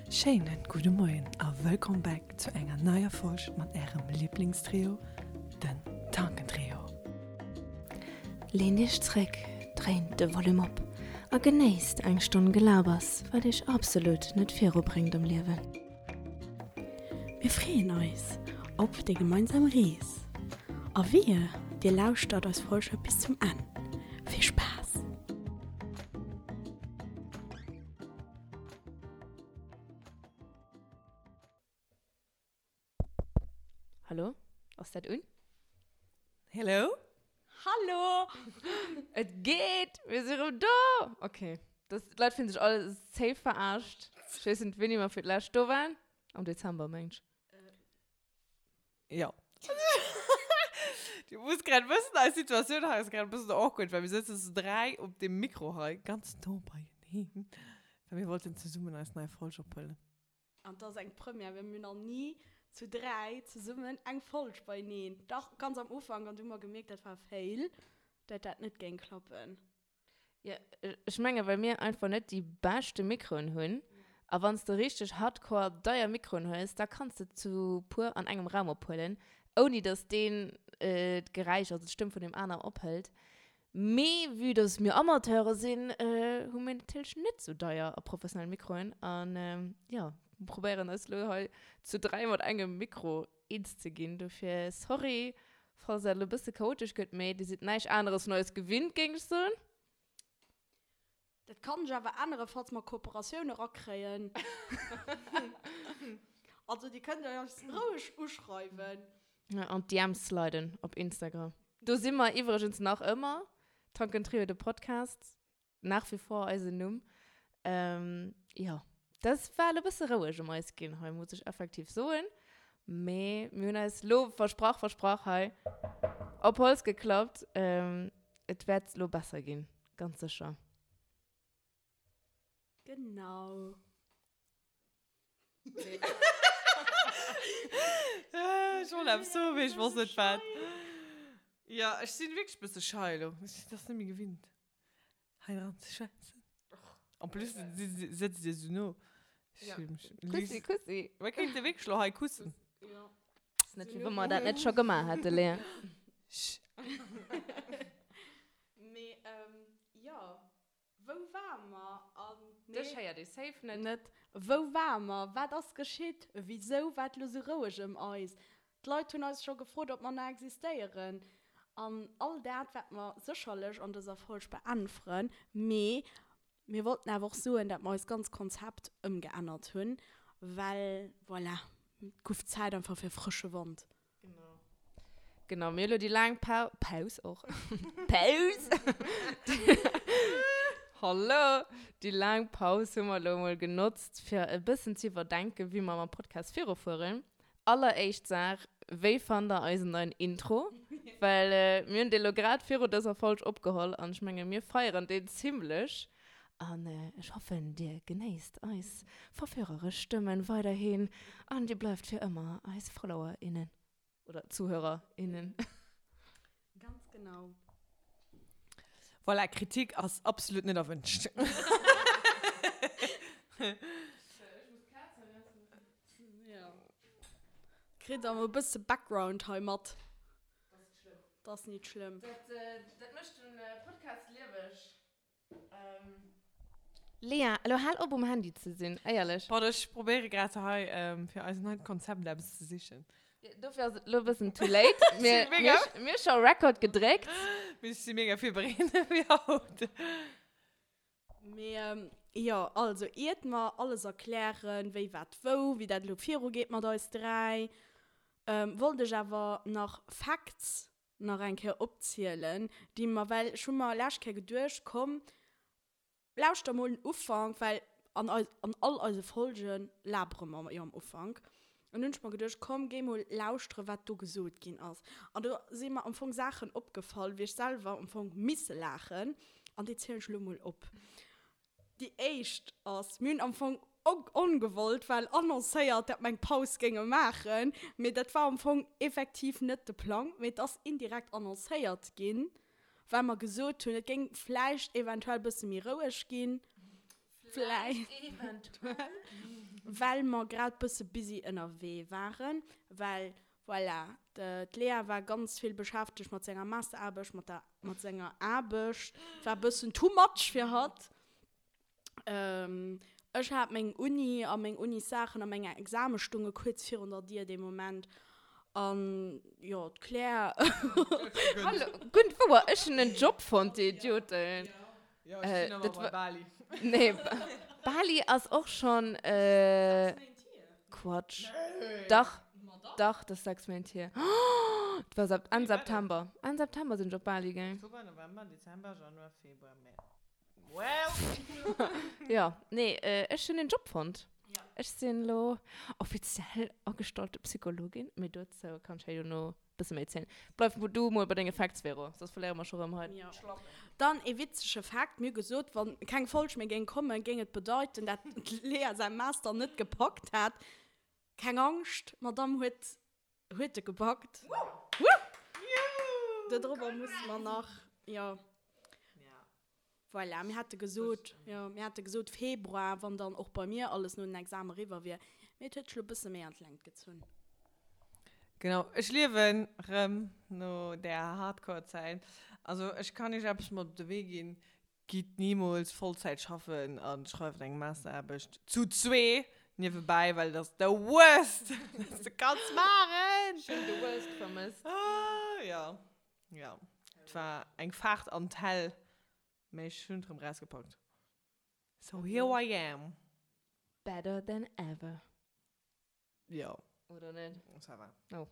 Schéinen gudde Moien a wëllkomm back zu enger neier Folg mat ärem Liblingstrio, den Tankentrio. Leent iech zréck, dréint de Volume op a genéisst eng Stonn Gelabers, wat iech absolut net virubréngt am Liewen. Mir freeën eis op déi gemeinsam Rees a wehe dir lauschtert eis Folge bis zum Enn. Vill Spaass! Hallo, ass dat un? Hello? Hallo! Et geet! Mir si rëm do! Ok, das, d'Leit fillen sech all safe verarscht. Ech weess net, wéini mer fir d'lescht do waren. Am Dezember, mengt ech. Jo. Du muss grad wëssen, eis Situatioun hei ass grad e bëssen awkward, well mir sëtzen zu 3 op deem Mikro hei, ganz no beieneen, well mir wollten zesummen eis nei Folg ophuelen. An 't ass eng Première, well mir hunn nach ni zu 3 zesummen eng Folg beieneen. Dach, ganz am Ufank, an du hu mer gemierkt, dat war e Fail, dat dat net géing klappen. Jo, ech mengen, well mir einfach net déi beschte Mikroen hunn. A wann s de richteg hardcore deier Mikroen hues, da kanns de zu puer an engem Raum ophuelen, ouni dass deen d'Geräisch, also d'Stëmm vun deem aner ophëlt. Mee vue dass mir Amateure sinn, hu mir natierlech net sou deier a professionell Mikroen an jo, probéieren eis lo hei zu 3 mat engem Mikro eens ze ginn. Dofir sorry, falls dat lo e bësse chaotesch gëtt, mee dir sidd näischt aneres vun eis gewinnt, géing ech soen. Dat kann sech awer änneren, falls mer Kooperatioun erakréien. Also dir kënnt eis roueg uschreiwen. An d'DMs sliden op Instagram. Do si mer iwwregens nach ëmmer, Tankentrio de Podcast, nach wie vor eisen Numm. Jo, dat war elo e bësse roueg ëm eis ginn hei, muss ech effektiv soen. Mee mir hunn eis elo versprach, versprach hei, op Holz geklappt, et wäert elo besser ginn. Ganz sécher. Genau. Ech wollt eppes soen, mee ech wosst net wat. Jo, ech sinn wierklech e bësse schei elo. Ech sinn dat net méi gewinnt, hei dran ze schwätzen. En plus sëtzt Dir esou no. Kussi, kussi. Mir kéinte wierklech elo hei kussen. Ass net, wéi wa mer dat net scho gemaach hätte, Léa. Mee jo, wou ware mer? An nee. Dech héiert ee safe net. Net. Wou ware mer? Wat ass geschitt? Wisou war et lo sou roueg ëm eis? D'Leit hunn eis scho gefrot, ob mer nach existéieren. An all dat wäerte mer sécherlech an dëser Folg beäntweren. Mee mir wollten awer och soen, dat mer eist ganz Konzept ëmgeännert hunn, well voilà, et guff Zäit einfach fir frësche Wand. Genau. Genau, mir hu lo déi laang Pau Paus och. Paus! Hallo! Déi laang Paus hu mer lo mol genotzt, fir e bëssen ze iwwerdenken, wéi mer mam Podcast virufueren. Alleréischt Saach, Wéi fannt der eisen neien Intro? Well mir hunn dee lo grad viru dëser Folg opgeholl an ech menge mir feieren deen zimmlech. An ech hoffen, dir genéisst eis verführeresch Stëmmen weiderhin an dir bleift fir ëmmer eis Follower, innen. Oder Zuhörer, innen. Ganz genau. Voilà, Kritik ass absolut net erwünscht. Kritt der mol e bësse Background hei mat. Dat ass nit schlëmm. Dat mécht den Podcast lieweg. Lea, elo hal op um Handy ze sinn, éierlech. Pardon, ech probéiere grad hei fir eist neit Konzept eppes ze sichen. Dofir ass et elo e bëssen too late. Mir hu scho Record gedréckt. Mee ech si mega virbereet fir haut. Mee jo, also iert mer alles erklären, wéi wat wou, wéi dat elo virugeet mat eis 3, wollt ech awer nach Facts nach eng Kéier opzielen, déi mer, well ech hu mer lescht Kéier geduecht, komm, lauschter mol den Ufank, well an eis, an all eise Folge labere mer jo am Ufank. An hunn ech mer geduecht, komm, géi mol lauschteren, wat do gesot ginn ass. An do si mer am Fong Saachen opgefall, wéi ech selwer am Fong misse laachen, an déi zielen ech elo mol op. Déi éischt ass, mir hunn am Fong ongewollt well annoncéiert, dat mer eng Paus géinge maachen, mee dat war am Fong effektiv net de Plang, mee et ass indirekt annoncéiert ginn, well mer gesot hunn, et géing vläicht eventuell e bësse méi roueg ginn. Vläicht eventuell. Well mer grad bësse busy ënnerwee waren, well voilà, d'Lea war ganz vill beschäftegt mat senger Masteraarbecht, mat der, mat senger Aarbecht, et war bëssen too much fir hatt. Ech hat meng Uni a meng Unissaachen a meng Exame stunge kuerz virun der Dier dee Moment an jo, d'Claire. Hallo, gutt wouer, ech hunn en Job fonnt, dir Idioten. Jo, ech sinn awer bei Bali. Nee, Bali ass och schonn. Quatsch. Dach, dach, dat ass 6 Méint hier. Et war Enn September. Enn September sinn ech op Bali gaang. Oktober, November, Dezember, Januar, Februar, März. Well. Jo, nee, ech hunn en Job fonnt. Ech sinn elo offiziell agestallte Psychologin, mee dozou kann ech hei dono Bësse méi zielen. Bleif du mol bei denge Facts, Vero, soss verléiere mer scho rëm hei Jo. Dann ee witzege Fact, Mir hu gesot, wann keng Folg méi géing kommen, géing et bedeiten, dat d'Lea säi Master net gepackt hätt. Keng Angscht, d'Madame huet huet e gepackt. Wouh! Dodrobber musse mer nach, jo. Voilà, mir hate gesot, jo, mir hate gesot Februar, wann dann och bei mir alles no den Exame eriwwer wier. Mee et huet sech lo e bësse méi an d'Längt gezunn. Genau, ech liewen rëm no där Hardcore-Zäit. Also ech kann iech eppes mat op de Wee ginn, Gitt nimools Vollzäit schaffen a schreift eng Masteraarbecht zu zwee niewebäi, well dat ass the worst, wat s de kanns maachen! Ech hunn the worst vermësst. Ah, jo. Jo, et war eng Fahrt an d'Hell, mee ech hunn et rëm rausgepackt. So here I am. Better than ever. Jo. Oder net? Ça va. Oh.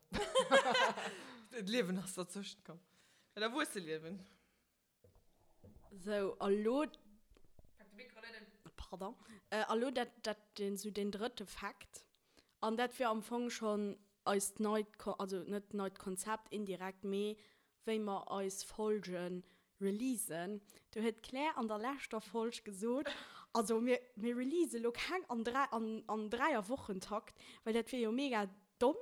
D'Liewen ass derzwëschent komm. Dat Erwuesseliewen. Sou, a lo. Pak de Mikro net un. Pardon. A lo dat, dat, deen, sou deen drëtte Fakt. An dat wier am Fong schonn eist neit, also net neit Konzept indirekt, mee wéi mer eis Folge releasen. Do huet d'Claire an der leschter Folg gesot, also mir, mir release lo keng an 3, an, an Dräierwochentakt, well dat wier jo mega domm.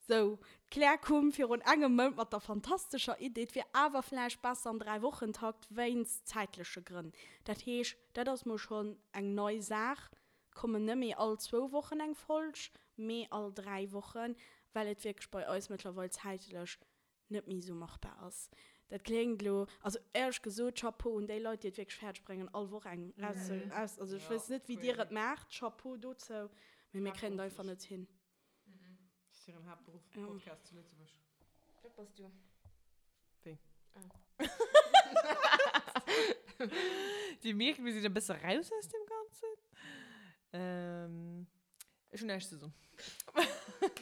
Sou, d'Claire koum virun engem Mount mat der fantastescher Idee, et wier awer vläicht besser am Dräiwochentakt wéinst zäitleche Grënn. Dat heescht, dat ass mol schonn eng nei Saach, et kommen net méi all zwou Wochen eng Folg, mee all 3 Wochen, well et wierklech bei eis mëttlerweil zäitlech net méi esou machbar ass. Dat kléngt elo, also éierlech gesot, Chapeau un déi Leit, déi et wierklech fäerdeg bréngen, all Woch eng raus, also ech weess net, wéi dir et maacht, Chapeau dozou, mee mir kréien et einfach net hin. Das ist hiren Haaptberuff, Podcast zu Lëtzebuerg. Dat bass du. Wéi? Dir mierkt, mir sinn e bësse raus aus dem Ganzen. Ähm, ech hunn näischt ze soen.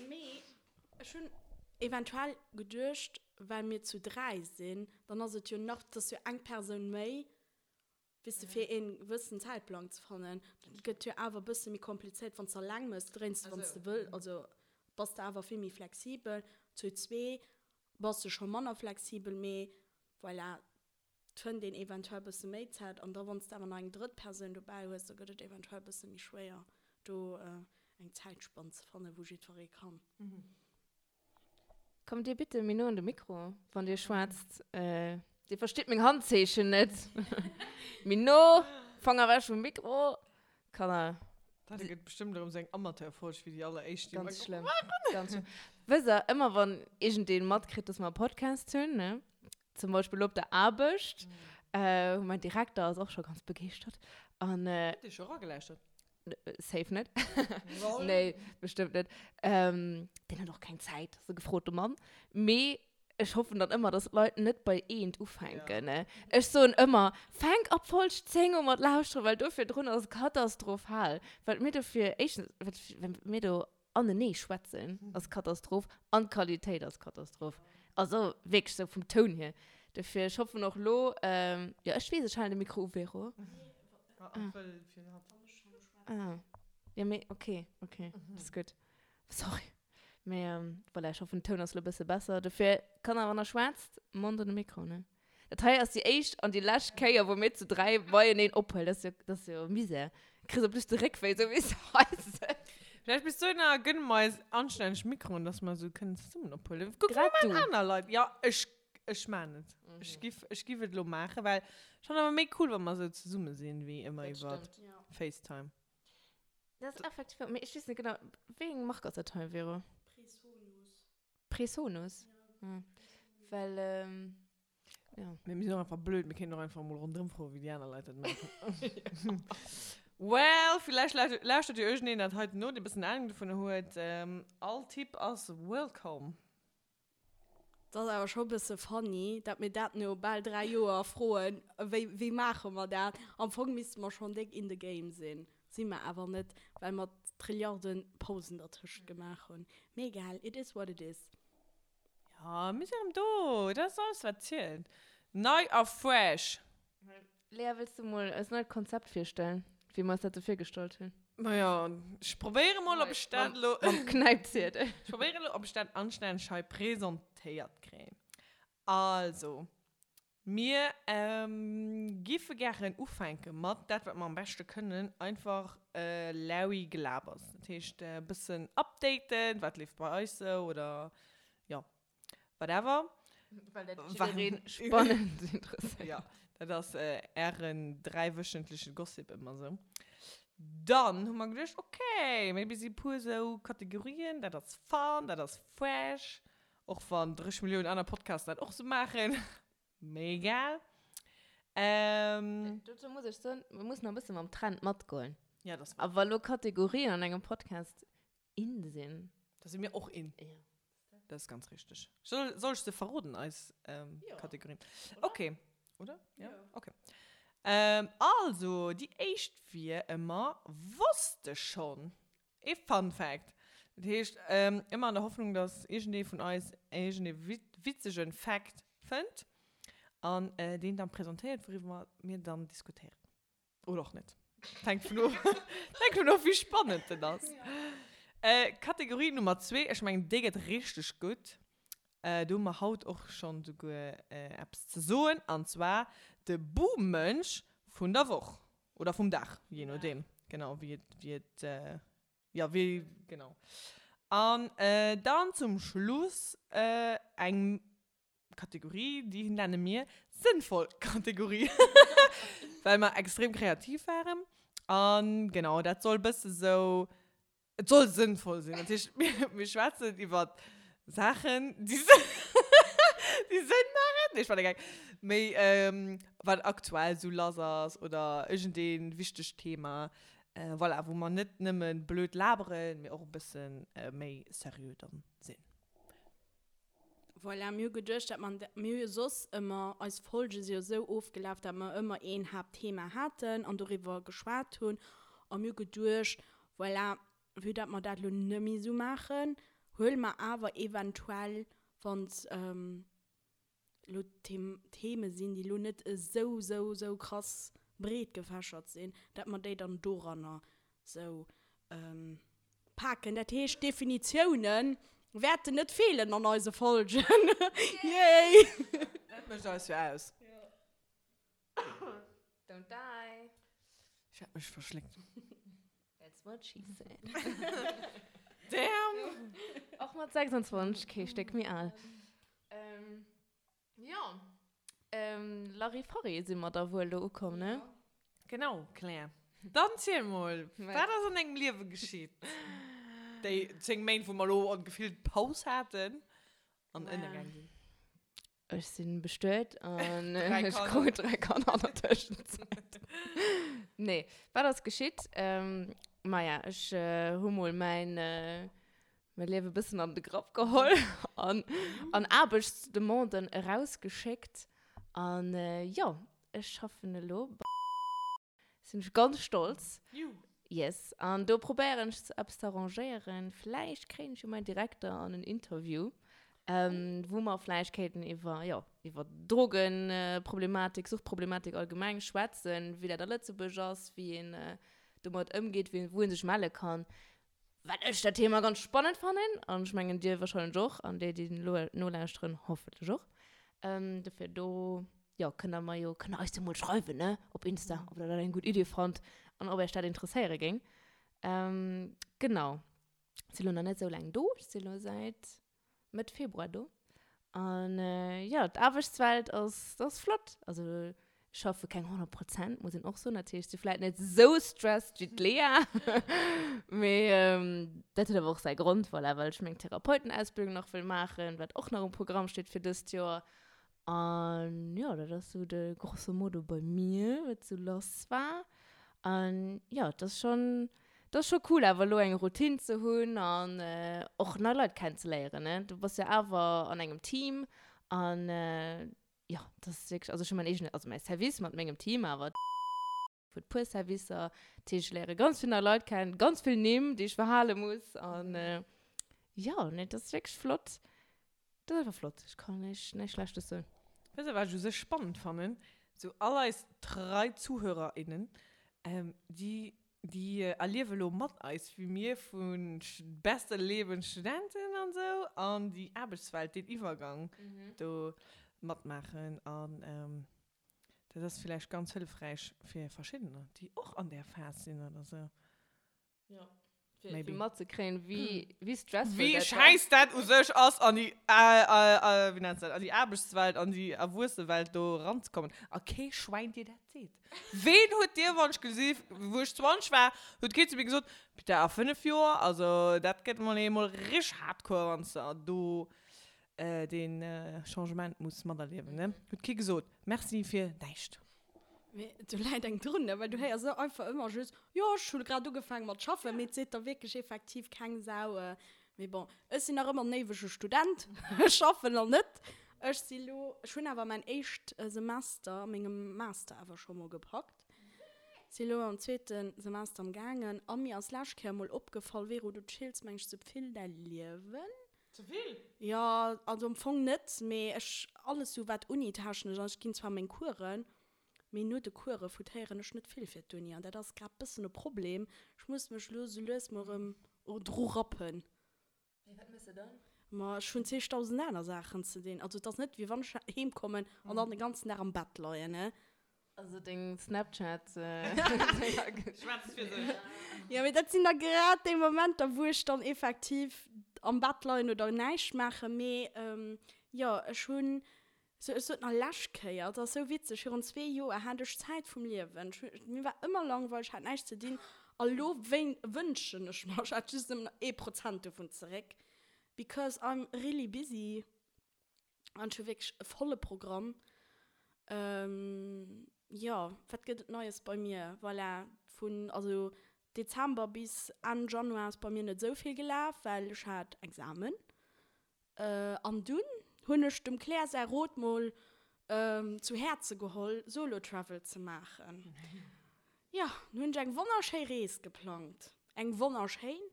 Mee ech hunn eventuell geduecht, well mir zu 3 sinn, dann ass et jo nach, 't ass jo eng Persoun méi, Weess de, fir een gewëssen Zäitplang ze fannen. Dat gëtt jo awer e bësse méi komplizéiert, wann s de alleng mëss, dréins de, wann s de wëll, also bass de awer vill méi flexibel. Zu zwee bass de scho manner flexibel, mee voilà, et fënnt een eventuell e bësse méi Zäit. An da wann s de awer nach eng drëtt Persoun dobäi hues, da gëtt et eventuell e bësse méi schwéier, do eng Zäitspann ze fannen, wou jiddweree kann. Kommt dir bitte méi no un de Mikro, wann dir schwätzt. Dir verstitt meng Handzeechen net. Méi no, Fanger ewech vum Mikro. Kanner. Dat gëtt bestëmmt erëm sou eng Amateurfolg wéi déi alleréischt, déi mer Ganz schlëmm. Ganz schlëmm. Wësst der, ëmmer wann iergendeen matkritt, dass mer e Podcast hunn, ne, zum Beispill op der Aarbecht, mäin Direkter ass och scho ganz begeeschtert an. Huet dee scho eragelauschtert? Safe net. Nee, bestëmmt net. Ähm, deen huet och keng Zäit, ass e gefrote Mann. Mee ech hoffen dann ëmmer, dass d'Leit net bei eent ufänken, ne? Ech soen ëmmer, Fänk ab Folg 10 u mat lauschteren, well do virdrun ass katastrophal. Wat mir do fir, éischtens, wat, wat mir do anenee schwätzen, ass Katastroph an d'Qualitéit ass Katastroph. Also wierklech sou vum Toun hier. Dofir, ech hoffen och lo, jo ech weess, ech halen de Mikro u, Vero. Ah, jo mee ok, ok, ass gutt. Sorry. Mee voilà, ech hoffen den Toun ass lo e bësse besser. Dofir, Kanner, wann der schwätzt, Mond un de Mikro, ne? Dat hei ass déi éischt an déi lescht Kéier, wou mir zu 3 beieneen ophuelen. Dat ass jo, dat ass jo Misär. Kriss op plus de Réckwéi, sou wéi s de hei sëtz. Vläicht bis dohinner gënne mer eis anstänneg Mikroen, dass mer esou kënnen zesummen ophuelen. Kuck mol Grad du. aner Leit. Jo, ech, ech maan et. Ech giff, ech giff et elo maachen, well ech fannen awer méi cool, wa mer esou zesumme sinn, wéi ëmmer Dat iwwer stëmmt. FaceTime. Dat ass effektiv, mee ech weess net genau, wéi eng Mark ass dat hei, Vero? Presonus. Presonus? Ja. Well, ja. Mee mir sinn och einfach blöd, mir kéinten och einfach emol ronderëm froen, wéi déi aner Leit dat maachen. Well, villäicht lauschtert jo iergendeen dat heiten no, dee bëssen Ahnung dovunner huet. All Tipp ass welcome. Et ass awer scho bësse funny, dat mir dat no bal 3 Joer froen, wéi, wéi maache mer dat? Am Fong misste mer schonn déck in the game sinn, si mer awer net, well mer Trilliarde Pausen dertëscht gemaach hunn. Mee egal, it is what it is. Jo, mir sinn erëm do, dat ass alles wat zielt. Nei a fresh. Lea, wëlls du mol eist neit Konzept virstellen, wéi mer eis dat sou virgestallt hunn? Majo, ech probéiere mol, ob ech dat elo. Mam Knäipziedel. Ech probéiere elo, ob ech dat anstänneg hei presentéiert kréien. Also, mir giffe gären ufänke mat dat, wat mer am beschte kënnen, einfach Larry Gelabers. Dat heescht, e bëssen updaten, wat leeft bei eis sou oder jo. Whatever. Well dat jiddereen spannend interesséiert. Ja, dat ass ären dräiwöchentleche Gossip ëmmer sou. Dann hu mer geduecht, okay, maybe si puer sou Kategorien, dat ass fun, dat ass fresh, och wann 30 Milliounen aner Podcasten dat och sou maachen, mee egal. Dozou muss ech soen, mir mussen e bësse mam Trend matgoen. Ja, dat ass wahr. A wa lo Kategorien an engem Podcast in sinn. Da si mir och in. Ja. Dat ass ganz richteg. Soll, soll ech se verroden, eis ähm, Ja. Kategorien? Okay. Oder? Ja? Okay. Ähm, also, déi éischt wier ëmmer Wosst de schonn? Ee Fun Fact. Dat heescht, ähm, ëmmer an der Hoffnung, dass iergendee vun eis iergendee witzegen Fact fënnt an äh, deen dann presentéiert, wouriwwer mir dann diskutéieren. Oder och net. Hänkt vun of, hänkt vun of, wéi spannend den ass. Äh, Kategorie Nummer zwee, ech mengen, déi gëtt richteg gutt. Äh, do hu mer haut och schonn souguer äh, eppes ze soen, an zwar de Buhmënsch vun der Woch. Oder vum Dag, je nodeem, genau, wéi et, wéi et, äh, ja, wéi, genau. An äh, dann zum Schluss äh, eng Kategorie, déi nenne mir sënnvoll Kategorie, well mer extrem kreativ waren. An genau, dat soll bësse sou, et soll sënnvoll sinn. Dat heescht, mir, mir schwätzen iwwer Saachen, déi Sënn, déi Sënn maachen. Nee, ech war der Geck. Méi, wat aktuell sou lass ass oder iergendee wichtegt Thema. Voilà, wou mer net nëmme blöd laberen, mee och e bësse méi seriö dann sinn. Voilà, mir hu geduecht, dat mer, mir hu jo soss ëmmer, eis Folge si jo esou ofgelaf, dat mer ëmmer een Haaptthema haten an doriwwer geschwat hunn. A mir hu geduecht, voilà, vue dat mer dat elo net méi esou maachen, huele mer awer eventuell, wann elo Theme sinn, déi elo net esou, esou, esou krass breet gefächert sinn, dat mer déi dann doranner esou paken. Dat heescht, Definitioune wäerten net feelen an eise Folgen. Yay! Dat mécht eis jo aus. Don't die. Ech hat mech verschléckt. That's what she said. Damn! Och mat 26 kee Stéck méi al. Jo, Larifari si mer da wuel do ukomm, ne? Genau, Claire. Dann ziel mol, wat ass an dengem Liewe geschitt? Déi 10 Méint, wou mer elo an gefillt Paus haten an ënnergaang sinn. Ech sinn bestuet an ech krut 3 Kanner an der Tëschenzäit. Nee, wat ass geschitt? Maja, ech hu mol mäin Mäi Liewe bëssen an de Grapp geholl an, an Aarbechtsdemanden erausgeschéckt. An jo, ech schaffen elo bei. Sinn ech ganz stolz. Juhu. Yes. An do probéieren ech eppes ze arrangéieren. Vläicht kréien ech jo mäin Direkter an en Interview, wou mer vläicht kéinten iwwer, jo, iwwer Drogenproblematik, Suchtproblematik allgemeng schwätzen, wéi dat a Lëtzebuerg ass, wéi een domat ëmgeet, wéi, wou ee sech melle kann. Well ech dat Thema ganz spannend fannen, an ech mengen dir wahrscheinlech och, an déi, déi elo nolauschteren, hoffentlech och. Dofir do, jo, kënnt der mer jo, kënnt der eis jo mol schreiwen, ne, op Insta, ob der dat eng gutt Idee fannt an ob iech dat interesséiere géing. Genau. Si lo nach net esou laang do, ech si lo säit Mëtt Februar do. An jo, d'Aarbechtswelt ass, ass flott. Also. Schaffe keng 100 Prozent, muss een och soen. Dat heescht, si vläit net esou stressed wéi d'Lea. Mee dat huet awer och säi Grond, voilà, well ech meng Therapeutenausbildung nach wëll maachen, wat och nach um Programm steet fir dëst Joer. An jo, dat ass esou de grosso modo bei mir, wat esou lass war. An jo, et ass schonn, et ass scho cool awer elo eng Routine ze hunn an och nei Leit kennenzeléieren, ne. Du bass jo awer an engem Team an jo, dat ass wierklech, also ech hu mäin eegene, also mäi Service mat mengem Team, awer huet puer Servicer, dat heescht ech léiere ganz vill nei Leit kennen, ganz vill Nimm, déi ech verhale muss an jo, nee, dat ass wierklech flott, dat ass einfach flott, ech kann näischt, näischt Schlechtes soen. Weess de wat ech u sech spannend fannen? Sou all eis trei ZuhörerInnen, déi Déi erliewe lo mat eis, wéi mir vu beste Leben Studenten an sou an déi Aarbechtswelt, deen Iwwergang do matmaachen. An dat ass villäicht ganz hëllefräich fir verschiddener, déi och an där Phas sinn oder sou. Jo, fir matzekréien, wéi stressful dat war. Wéi schäiss dat u sech ass, an déi, wéi nenns de dat, an déi Aarbechtswelt, an déi Erwuessewelt do eranzekommen. A kee Schwäin dir dat seet. Ween huet dir, wann ech gesi, wou ech 20 war, huet kee zu mir gesot, Bitte a 5 Joer, also dat gëtt mol eemol richteg hardcore, wann s de do dee Changement muss materliewen, ne? Huet kee gesot. Merci fir näischt. Mee do läit eng drun, ne? Well du héiers einfach ëmmer just, jo, ech hu grad ugefaange mat schaffen, mee et seet der wierklech effektiv keng Sau. Mee bon, ech sinn nach ëmmer en éiwege Student, ech schaffen nach net. Ech si lo, ech hunn awer mäin éischt Semester a mengem Master awer scho mol gepackt. Si lo am zweete Semester am gaangen a mir ass lescht Kéier mol opgefall, Vero, du chills meng ech ze vill däi Liewen. Ze vill? Jo, also am Fong net, mee ech, alles sou wat Uni-technesch ass, ech ginn zwar meng Coursen, mee no de Course foutéieren ech net vill fir d'Uni an dat ass grad bëssen e Problem. Ech muss mech lo sou lues mol erëm dru rappen. Mee wat mëss de dann? Ma ech hunn zigtausend aner Saachen ze dinn. Also et ass net wéi wann ech heem kommen an dann de ganzen Dag am Bett leien, ne. Also deng Snapchat. Schwätzt fir sech. Jo, mee dat sinn da grad déi Momenter, wou ech dann effektiv am Bett leien oder näischt maachen. Mee jo, ech hunn Sou, ech sot nach lescht Kéier, et ass sou witzeg, virun zwee Joer hat ech d'Zäit vum Liewen. Ech hu, mir war ëmmer langweileg, ech hat näischt ze dinn. A lo wéin, wënschen ech mer, ech hätt just nëmmen nach ee Prozent dovun zeréck, because I'm really busy an ech hu wierklech e volle Programm. Jo, wat gëtt et Neies bei mir? Voilà, vun, also Dezember bis Enn Januar ass bei mir net esou vill gelaf, well ech hat Examen. An dunn hunn ech dem Claire säi Rot mol zu Häerze geholl, Solo Travel ze maachen. Jo, dunn hunn ech eng wonnerschéi Rees geplangt. Eng wonnerschéin!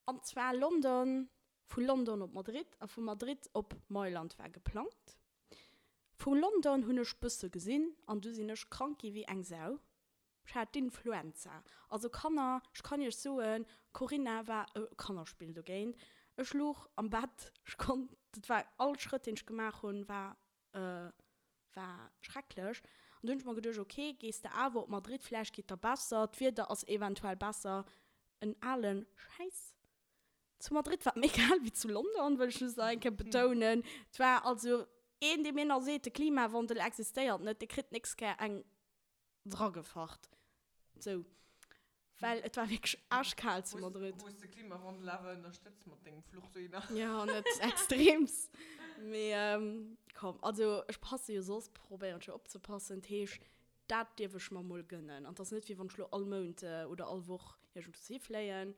An zwar London, vu London op Madrid a vu Madrid op Mailand war geplangt. Vu London hunn ech bësse gesinn an du sinn ech krank gi wéi eng Sau. Ech hat d'Influenza. Also Kanner, ech kann iech soen, Corinna war e Kannerspill dogéint. Ech luch am Bett, ech konnt, dat war, all Schrëtt deen ech gemaach hunn, war, war schrecklech. An du hunn ech mer geduecht, ok, gees de awer op Madrid, vläicht geet der besser, d'Wieder ass eventuell besser. En alen Schäiss. Zu Madrid war et méi kal wéi zu London, wëll ech just nach eng Kéier betounen. Et war also een, dee mir nach seet, de Klimawandel existéiert net, dee kritt d'nächst Kéier eng Dragefacht. Sou. Well et war wierklech aaschkal zu Madrid. Hues de Klimawandel awer ënnerstëtzt mat dengem Fluch dohinner? Jo, net extreems. Mee komm, also ech passe jo soss, probéieren ech jo opzepassen. Dat heesch, dat dierf ech mer mol gënnen. An et ass net wéi wann ech lo all Mount oder all Woch iergendwou hifléien.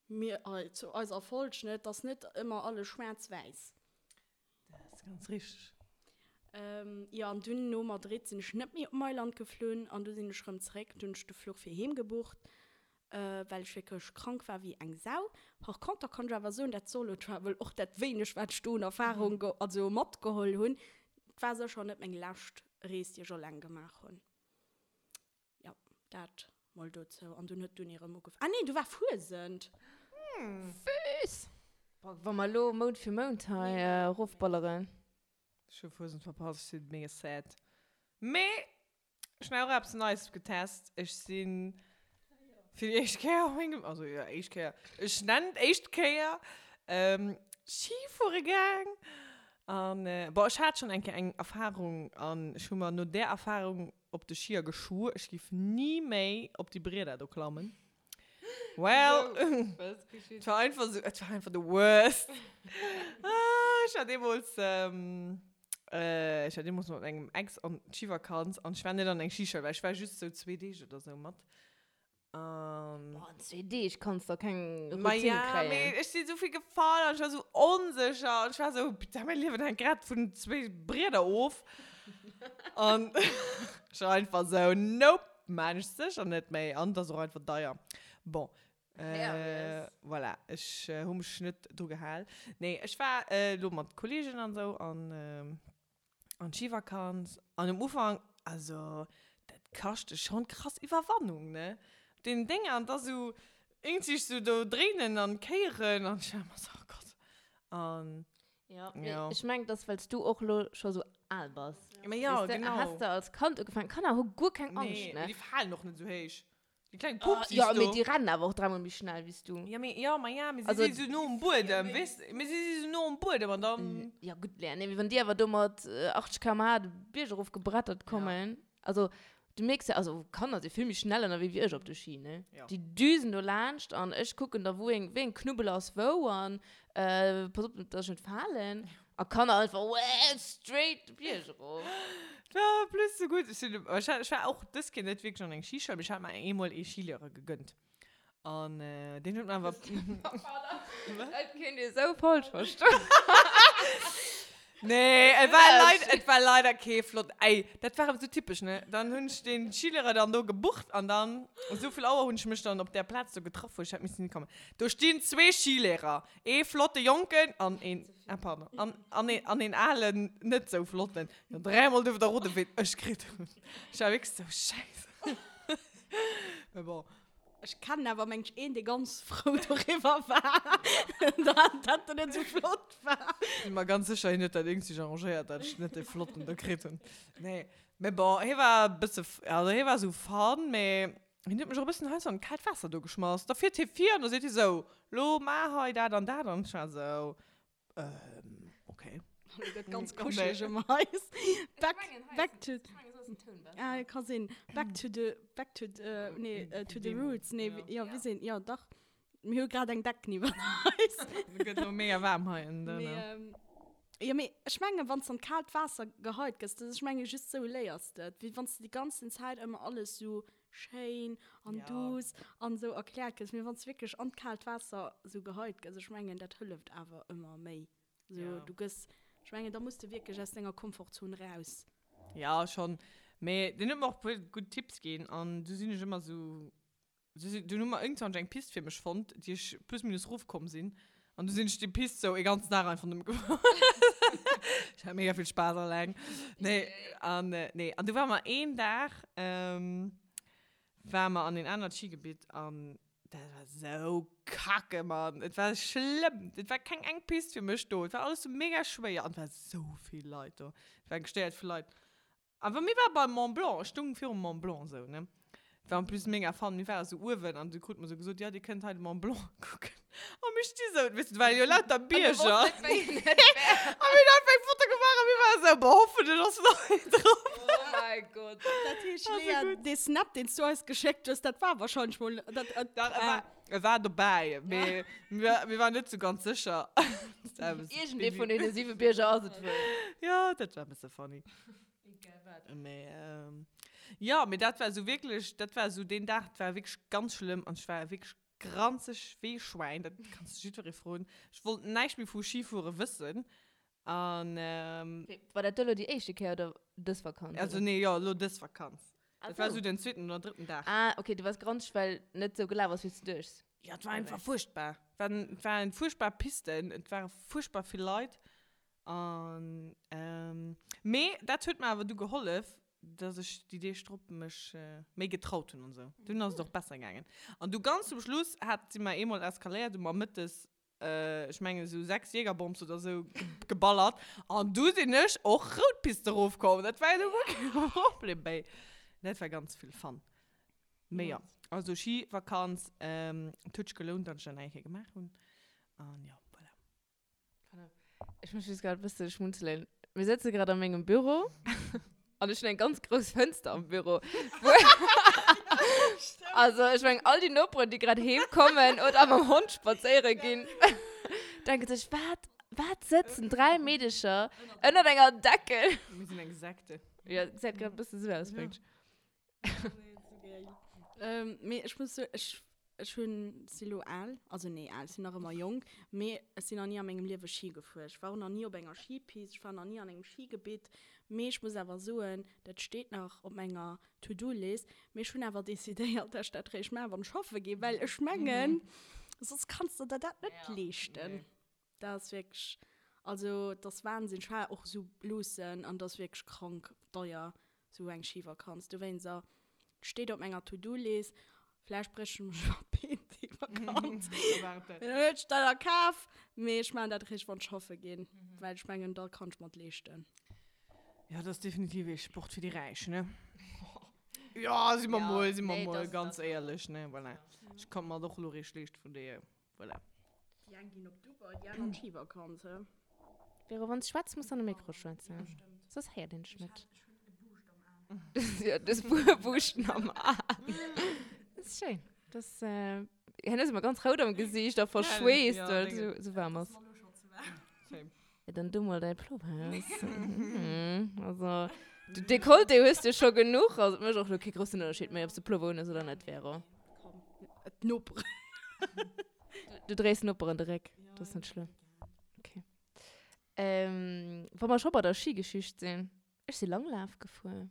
Mir, zu eiser Folg, ne, et ass net ëmmer alles schwaarz-wäiss. Dat ass ganz richteg. Jo, an dunn no Madrid sinn ech net méi op Mailand geflunn an du sinn ech rëm zeréck. Dunn hunn ech de Fluch fir heem gebucht, well ech wierklech krank war wéi eng Sau. Par conter kann ech awer soen, dat Solo Travel, och dat wéineg wat ech do un Erfahrung also matgeholl hunn, et war sécher net meng lescht Rees déi ech alleng gemaach hunn. Jo, dat mol dozou. An dunn huet d'Uni erëm ugef. Ah nee, du war Fuesent! Füss! Wa mer elo Mount fir Mount hei erofballeren. Ech hu Fuesent verpasst, ech si mega sad. Mee ech hunn och eppes Neies getest. Ech si fir déi éischt Kéier a mengem, also jo, éischt Kéier, ech nennen et éischt Kéier, Ski fuere gaang. An, bon, ech hat schonn eng Kéier eng Erfahrung an ech hu mer no där Erfahrung op de Schier geschwuer, ech giff ni méi op déi Brieder do klammen. Well, et war einfach sou, et war einfach the worst. Ah, ech war deemools, ech war deemools mat mengem Ex an d'Schivakanz an ech war net an eng Schischoul, well ech war just sou zwee Deeg oder sou mat. Um, Boah, an zwee Deeg kanns du keng Routine Ma ja, kréien. Mee ech sinn esou vill gefall an ech war esou onsécher an ech war esou, putain, mäi Liewen hänkt grad vun zwee Brieder of. An ech war einfach esou, nope, maan ech sécher net méi. An et ass och einfach deier. Bon, äh, voilà, ech hu mech net dru gehal. Nee, ech war elo mat Kollegen an esou an, An d'Schivakanz. An um Ufank, also dat kascht dech schon krass Iwwerwannung, ne? Op deenen Dénger an da sou iergendwéi sou do dréinen an kéieren an ech war ëmmer sou, oh Gott. An Ja, mee ja. ech mengen, dass well s du och lo scho sou al bass. Ma ja, Weess de, genau. has de als Kand ugefaangen. Kanner hu guer keng Angscht, Nee, ne? mee déi falen och net sou héich. Déi kleng Pupsis Ja, do. mee déi rennen awer och dräimol méi schnell wéi s du. Ja, mee, ja, ma ja, mee si si sou no um Buedem, weess de? Mee si si sou no um Buedem an dann. Ja, gutt, Lea, nee, mee wann déi awer do mat 80 km/h de Bierg erof gebrettert kommen, also du mierks ja, also Kanner si vill méi schnell ënnerwee wéi ech op de Ski, ne? Ja. Déi düsen do laanscht an ech kucken da, wou eng, wéi eng Knubbel ass wou an pass op, dass ech net falen. A Kanner einfach wee straight de Bierg erof. Et war en plus sou gutt. Ech sinn, ech hat, ech war och dës Kéier net wierklech an eng Schischoul, mee ech hat mer eemol ee Schilehrer gegönnt. An deen huet mer awer. Dat kéint ee sou falsch verstoen. Nee, et war leider, et war leider kee flott, ey, dat war awer sou typesch, ne? Dann hunn ech dee Schilehrer dann do gebucht an dann, esou vill Auer hunn ech mech dann op där Plaz do getraff, wou ech hätt missen hikommen. Do stinn zwee Schilehrer. Ee flotte Jonken an een, ah pardon, an, an een, an een alen, net sou flotten. Jo, dräimol duerf der roden, wéi ech kritt hunn. Ech war wierklech sou, Schäiss. Mä bon. Ech kennen awer mengt een, dee ganz frou doriwwer war, dat dat net sou flott war. Sinn mer ganz sécher, hien huet dat iergendwéi arrangéiert, dat ech net dee flotten do kritt hunn. Nee, mä bon, hie war e bësse, also hie war sou fun, mä Hien huet mech och e bëssen heiansdo an d'kaalt Waasser do geschmass. Da fiert hie vir an da seet hie sou, Lo maach hei dat an dat. An ech war sou, Ähm, okay. Lo gëtt ganz kuscheleg ëm eis. Back, back to. Ah, ka sinn. Back to the, back to the, nee, to the roots. Nee, jo, wéi sinn, jo, dach. Mir hu grad eng Decken iwwer eis. Et gëtt elo mega waarm hei en dënne. Jo, mee ech mengen, wann s de an d'kaalt Waasser geheit gëss, dat ech menge just sou léiers de et, wéi wann s de déi ganzen Zäit ëmmer alles sou schéin an duuss an sou erkläert gëss. Mee wann s de wierklech an d'kaalt Waasser sou geheit gëss, ech mengen, dat hëlleft awer ëmmer méi. Sou, du gëss, ech mengen, da muss de wierklech aus denger Komfortzon raus. Ja, schonn. Mee deen huet mer och e puer gutt Tipps ginn an du sinn ech ëmmer sou Dunn hu mer iergendwann eng Pist fir mech fonnt, déi ech plus minus rofkomm sinn. An du sinn ech déi Pist sou e ganzen Dag einfach nëmme gefuer. Ech hat mega vill Spaass alleng. Nee, an nee, an du ware mer een Dag, ware mer an een anert Skigebitt an dat war sou kacke, Mann. Et war schlëmm. Et war keng eng Pist fir mech do. Et war alles sou mega schwéier an et war sou vill Leit do. Et war gestéiert vu Leit. Awer mir ware beim Mont Blanc, ech stung virum Mont Blanc esou, ne. Et war en plus mega fun, mir ware sou uewen an du krut mer sou gesot, jo dir kënnt hei de Mont Blanc kucken. A mir sti sou, weess du, et ware jo lauter Bierger. A mir hunn einfach eng Foto gemaach a mir ware sou, boah hoffentlech ass nach een drop. Oh mäi Gott. Dat heescht, Lea, dee Snap, deen s du eis geschéckt hues, dat war wahrscheinlech mol, dat, Dat war, e war dobäi, mee mir, mir waren net sou ganz sécher. Iergendee vun deene siwe Bierger ass et wuel. Jo, dat war e bësse funny. Egal wat. Mee, jo, mee dat war sou wierklech, dat war sou deen Dag, dat war wierklech ganz schlëmm an ech war wierklech granzeg wéi e Schwäin, dat kanns de jiddweree froen. Ech wollt näischt méi vu Schifuere wëssen an. War dat do elo déi éischte Kéier oder dës Vakanz? Also nee, jo, elo dës Vakanz. Dat war sou den zweeten oder drëtten Dag. Ah, okay, du waars granzeg, well net sou gelaf ass, wéi s du duechts. Jo, et war einfach fuerchtbar. Et waren, et waren fuerchtbar Pisten, et ware fuerchtbar vill Leit. An, mee dat huet mer awer du gehollef, dass ech déi Deeg drop mech méi getraut hunn an esou. Dunn ass et och besser gaangen. An du ganz zum Schluss hat, si mer eemol eskaléiert, hu mer mëttes, ech mengen esou 6 Jägerbombs oder esou geballert. An du sinn ech och rout Piste erofkomm. Dat war jo du guer kee Problem méi. Dat war ganz vill Fun. Mee jo, also Schivakanz, et huet sech gelount, datt ech dat nach eng Kéier gemaach hunn. An jo, voilà. Ech muss just grad e bësse schmunzelen. Mir sëtze grad a mengem Büro an ech hunn eng ganz grouss Fënster am Büro. Also ech mengen, all déi Noperen, déi grad heem kommen oder mam Hond spadséiere ginn, denke sech, wat, wat sëtzen 3 Meedecher ënnert enger Deckel? Mir sinn eng Sekte. Ja, gesäit grad e bësse sou aus, mengt. Ähm, mee ech muss soen, ech, ech hunn, si lo al, also nee, al, sinn nach ëmmer jonk, mee ech sinn nach ni a mengem Liewe Schi gefuer. Ech war och nach ni op enger Schipist, ech war nach ni an engem Schigebitt. Mee ech muss awer soen, dat steet nach op menger To-do-List. Mee ech hunn awer decidéiert, dass ech dat réischt maachen, wann ech schaffe ginn, well ech mengen, soss kanns de der dat net leeschten. Dat ass wierklech, also et ass Wahnsinn. Ech war och esou luussen an et ass wierklech krank deier, esou eng Schivakanz. Dowéinst, et steet op menger To-do-List. Vläicht bréch ech mech iwwer d'Been déi Vakanz. Dann huet ech dat a Kaf. Mee ech maachen dat eréischt, wann ech schaffe ginn, well ech mengen, da kann ech mer et leeschten. Jo, dat ass definitiv ee Sport fir déi Räich, ne? Jo, si mer mol, si mer mol ganz éierlech, ne? Voilà. Ech konnt mer et och elo eréischt leeschten, vun deeër. Voilà. Déi eng ginn op Dubai, déi aner an d'Schivakanz, he? Vero, wann s schwätz, muss de an de Mikro schwätzen. Soss héiert een dech net. Ech hunn e Buuscht am Aen. Ja, du hues e Buuschten am Aen. Dat ass schéin. Dat ass, hien ass ëmmer ganz rout am Gesiicht a verschweesst, well et esou waarm ass. Same. Ja, dann du mol däi Plover aus. Also, de Dekolleté hues du scho genuch. Also, et mécht och elo kee groussen Ënnerscheed méi, ob s de Plover un hues oder net, Vero. Komm, d'Noperen. Du dréis Noperen de Réck, dat ass net schlëmm. Okay. Ähm, wa mer scho bei der Schigeschicht sinn, ech si Langlaf gefuer.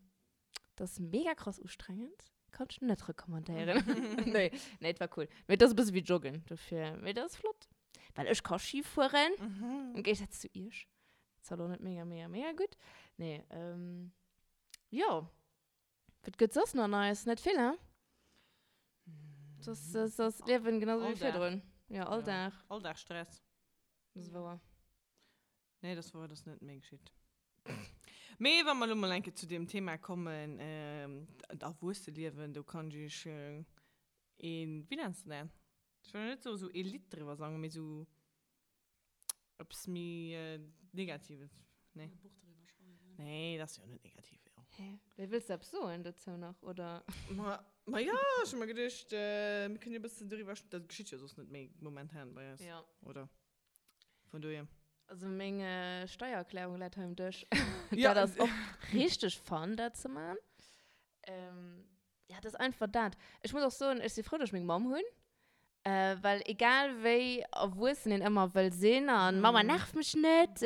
Dat ass mega krass ustrengend. Kann ech net recommandéieren. Nee, nee, et war cool. Mee et ass e bësse wéi Joggen, dofir. Mee dat ass flott. Well ech ka Schi fueren. Im Géigesaz zu iech. Zwar lo net mega, mega, mega gutt. Nee, ähm, jo. Wat gëtt soss nach Neies? Net vill, hein? Soss, soss ass d'Liewen genau sou wéi virdrun. Ja, all Dag. All Dag Stress. Dat ass wouer. Nee, dat ass wouer, dat ass net méi geschitt. Mee wa mer elo mol eng Kéier zu deem Thema kommen, d'Erwuesseliewen, do kann ech iech een, wéi nenns de dat? Ech wëll net soen, esou ee Lidd driwwer sangen, mee esou eppes méi Negatives, nee? E Buch driwwer schreiwen. Nee, dat ass jo net negativ, jo. Hä? Wéi, wëlls de eppes soen dozou nach, oder? Ma, ma jo, ech hu mer geduecht, mir kënnen jo e bëssen doriwwer, dat geschitt jo soss net méi momentan bei eis, Ja. oder? Vun dohier. Also meng Steiererklärung läit hei um Dësch. Ja. Dat ass och richteg fun, dat ze man. Ähm, ja, dat ass einfach dat. Ech muss och soen, ech si frou, dass ech meng Mamm hunn. Äh, well egal wéi erwuessen een ëmmer wëll sinn an Mama nerv mech net,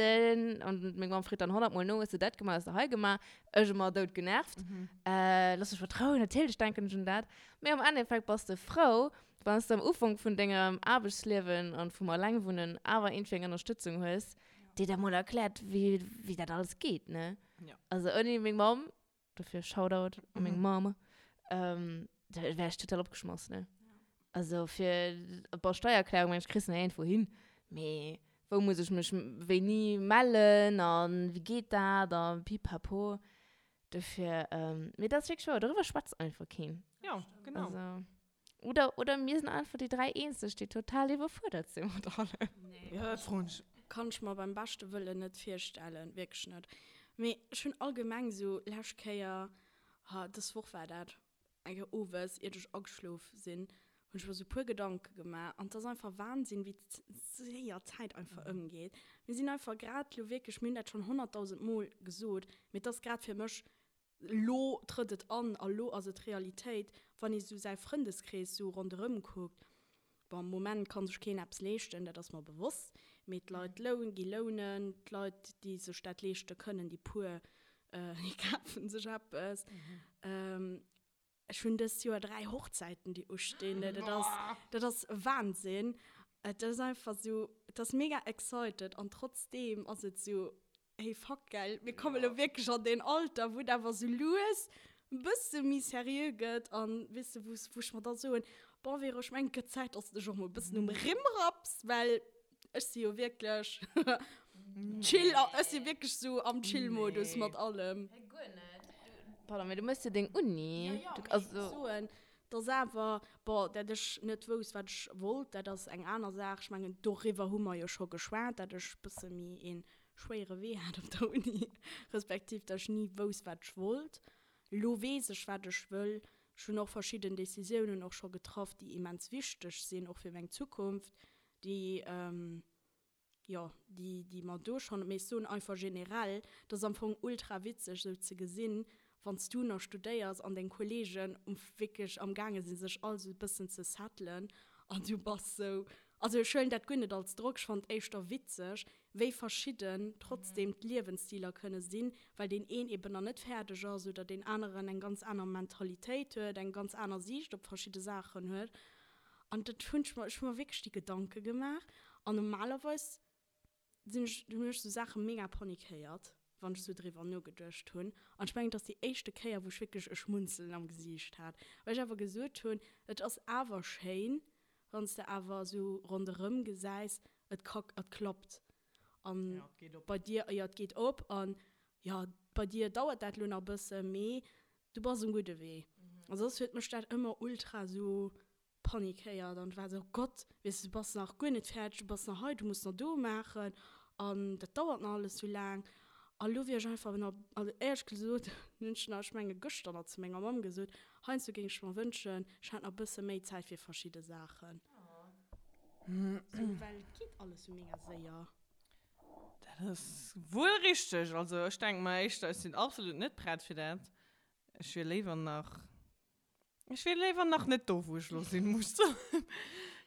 an meng Mamm freet dann honnertmol no, hues de dat gemaach, hues de hei gemaach? Ech ëmmer dout genervt. Äh, looss mech mat Rou, natierlech denken ech un dat. Mee am Endeffekt bass de frou, Wann s de am Ufank vun dengem Aarbechtsliewen an vum Allengwunnen awer iergendwéi eng Ënnerstëtzung hues, déi der mol erkläert, wéi, wéi dat alles geet, ne? Ja. Also ouni meng Mamm, dofir Shoutout u meng Mamm, ähm, da wär ech total opgeschmass, ne? Also fir, bon, Steiererklärung, mengen ech, kriss de nach iergendwou hin, mee wou muss ech mech wéini mellen a wéi geet dat a pipapo. Dofir, mee dat ass wierklech wouer, doriwwer schwätzt einfach keen. Ja, genau. Also. Oder, oder mir sinn einfach déi 3 eenzeg, déi total iwwerfuerdert sinn mat allem. Nee, Ja, dat froen ech. Kann ech mer beim beschte Wëllen net virstellen, wierklech net. Mee ech hunn allgemeng sou lescht Kéier, ha dës Woch war dat, eng Kéier owes, iert ech ageschlof sinn, hunn ech mer sou puer Gedanke gemaach. An 't ass einfach Wahnsinn, wéi séier d'Zäit einfach ëmgeet. Mir sinn einfach grad lo wierklech, mir hunn dat schonn honnertdausend Mol gesot, mee 't ass grad fir mech Lo trëtt et an a lo ass et Realitéit, wann ee sou säi Frëndeskrees sou ronderëm kuckt. Bon, am Moment ka sech keen eppes leeschten, dat ass mer bewosst, mee d'Leit loun, gi lounen, d'Leit, déi sech dat leeschte kënnen, déi puer, déi kafe sech eppes. Ech hunn dëst Joer 3 Hochzäiten, déi ustinn. Dat ass, dat ass Wahnsinn. Et ass einfach sou, et ass mega excited an trotzdeem ass et sou, Hey fuck gell, mir kommen elo wierklech an deen Alter, wou et awer sou lues e bësse méi seriö gëtt an weess de, wou wou ech mer da soen, bon Vero, ech mengen et gëtt Zäit, dass de dech och mol e bëssen um Rimm rapps, well ech si jo wierklech chill, ech si wierklech sou am Chill-Modus mat allem. Hä, guer net. Pardon, mee du méchs jo deng Uni. Jo, jo, mee ech soen. Dass awer, bon, dat ech net wousst, wat ech wollt, dat ass eng aner Saach. Ech mengen, doriwwer hu mer jo scho geschwat, dat ech e bësse méi ee schwéiere Wee hat op der Uni, respektiv dat ech ni wousst, wat ech wollt. Elo weess ech, wat ech wëll. Ech hunn och verschidden Decisiounen och scho getraff, déi immens wichteg sinn, och fir meng Zukunft, déi, jo, déi, déi mer do schonn, mee ech soen einfach generell, et ass am Fong ultra witzeg esou ze gesinn, wann s du nach studéiers an deng Kollegen um wierklech am gaange sinn, sech all esou e bëssen ze settelen an du bass esou, also ech huelen dat guer net als Drock, ech fannen et éischter witzeg, wéi verschidden trotzdem d'Liewensstiler kënne sinn, well deen een eben nach net fäerdeg ass oder deen aneren eng ganz aner Mentalitéit huet, eng ganz aner Siicht op verschidde Saachen huet. An dat hunn ech mer, ech hu mer wierklech déi Gedanke gemaach. An normalerweis sinn ech, hunn ech sou Saache mega panikéiert, wann ech sou driwwer nogeduecht hunn. An ech mengen, et ass déi éischte Kéier, wou ech wierklech e Schmunzelen am Gesiicht hat, well ech awer gesot hunn, et ass awer schéin, wann s de awer sou ronderëm gesäis, et ka, et klappt. An bei dir, jo, et geet op. An jo, bei dir dauert dat elo nach e bësse, mee du bass um gudde Wee. A soss huet mech dat ëmmer ultra sou panikéiert an war sou, oh Gott, weess de, du bass nach guer net fäerdeg, du bass nach hei, du muss nach do maachen an dat dauert nach alles sou laang. A lo wier ech einfach nach, also éierlech gesot hunn ech nach, ech menge gëschter nach zu menger Mamm gesot, heiansdo géing ech mer wënschen, ech hätt nach e bësse méi Zäit fir verschidde Saachen. Sou, well et geet alles sou mega séier. Dat ass wuel richteg. Also ech denke mer éischter, ech sinn absolut net prett fir dat. Ech wier léiwer nach, ech wier léiwer nach net do, wou ech elo sinn, muss ech soen.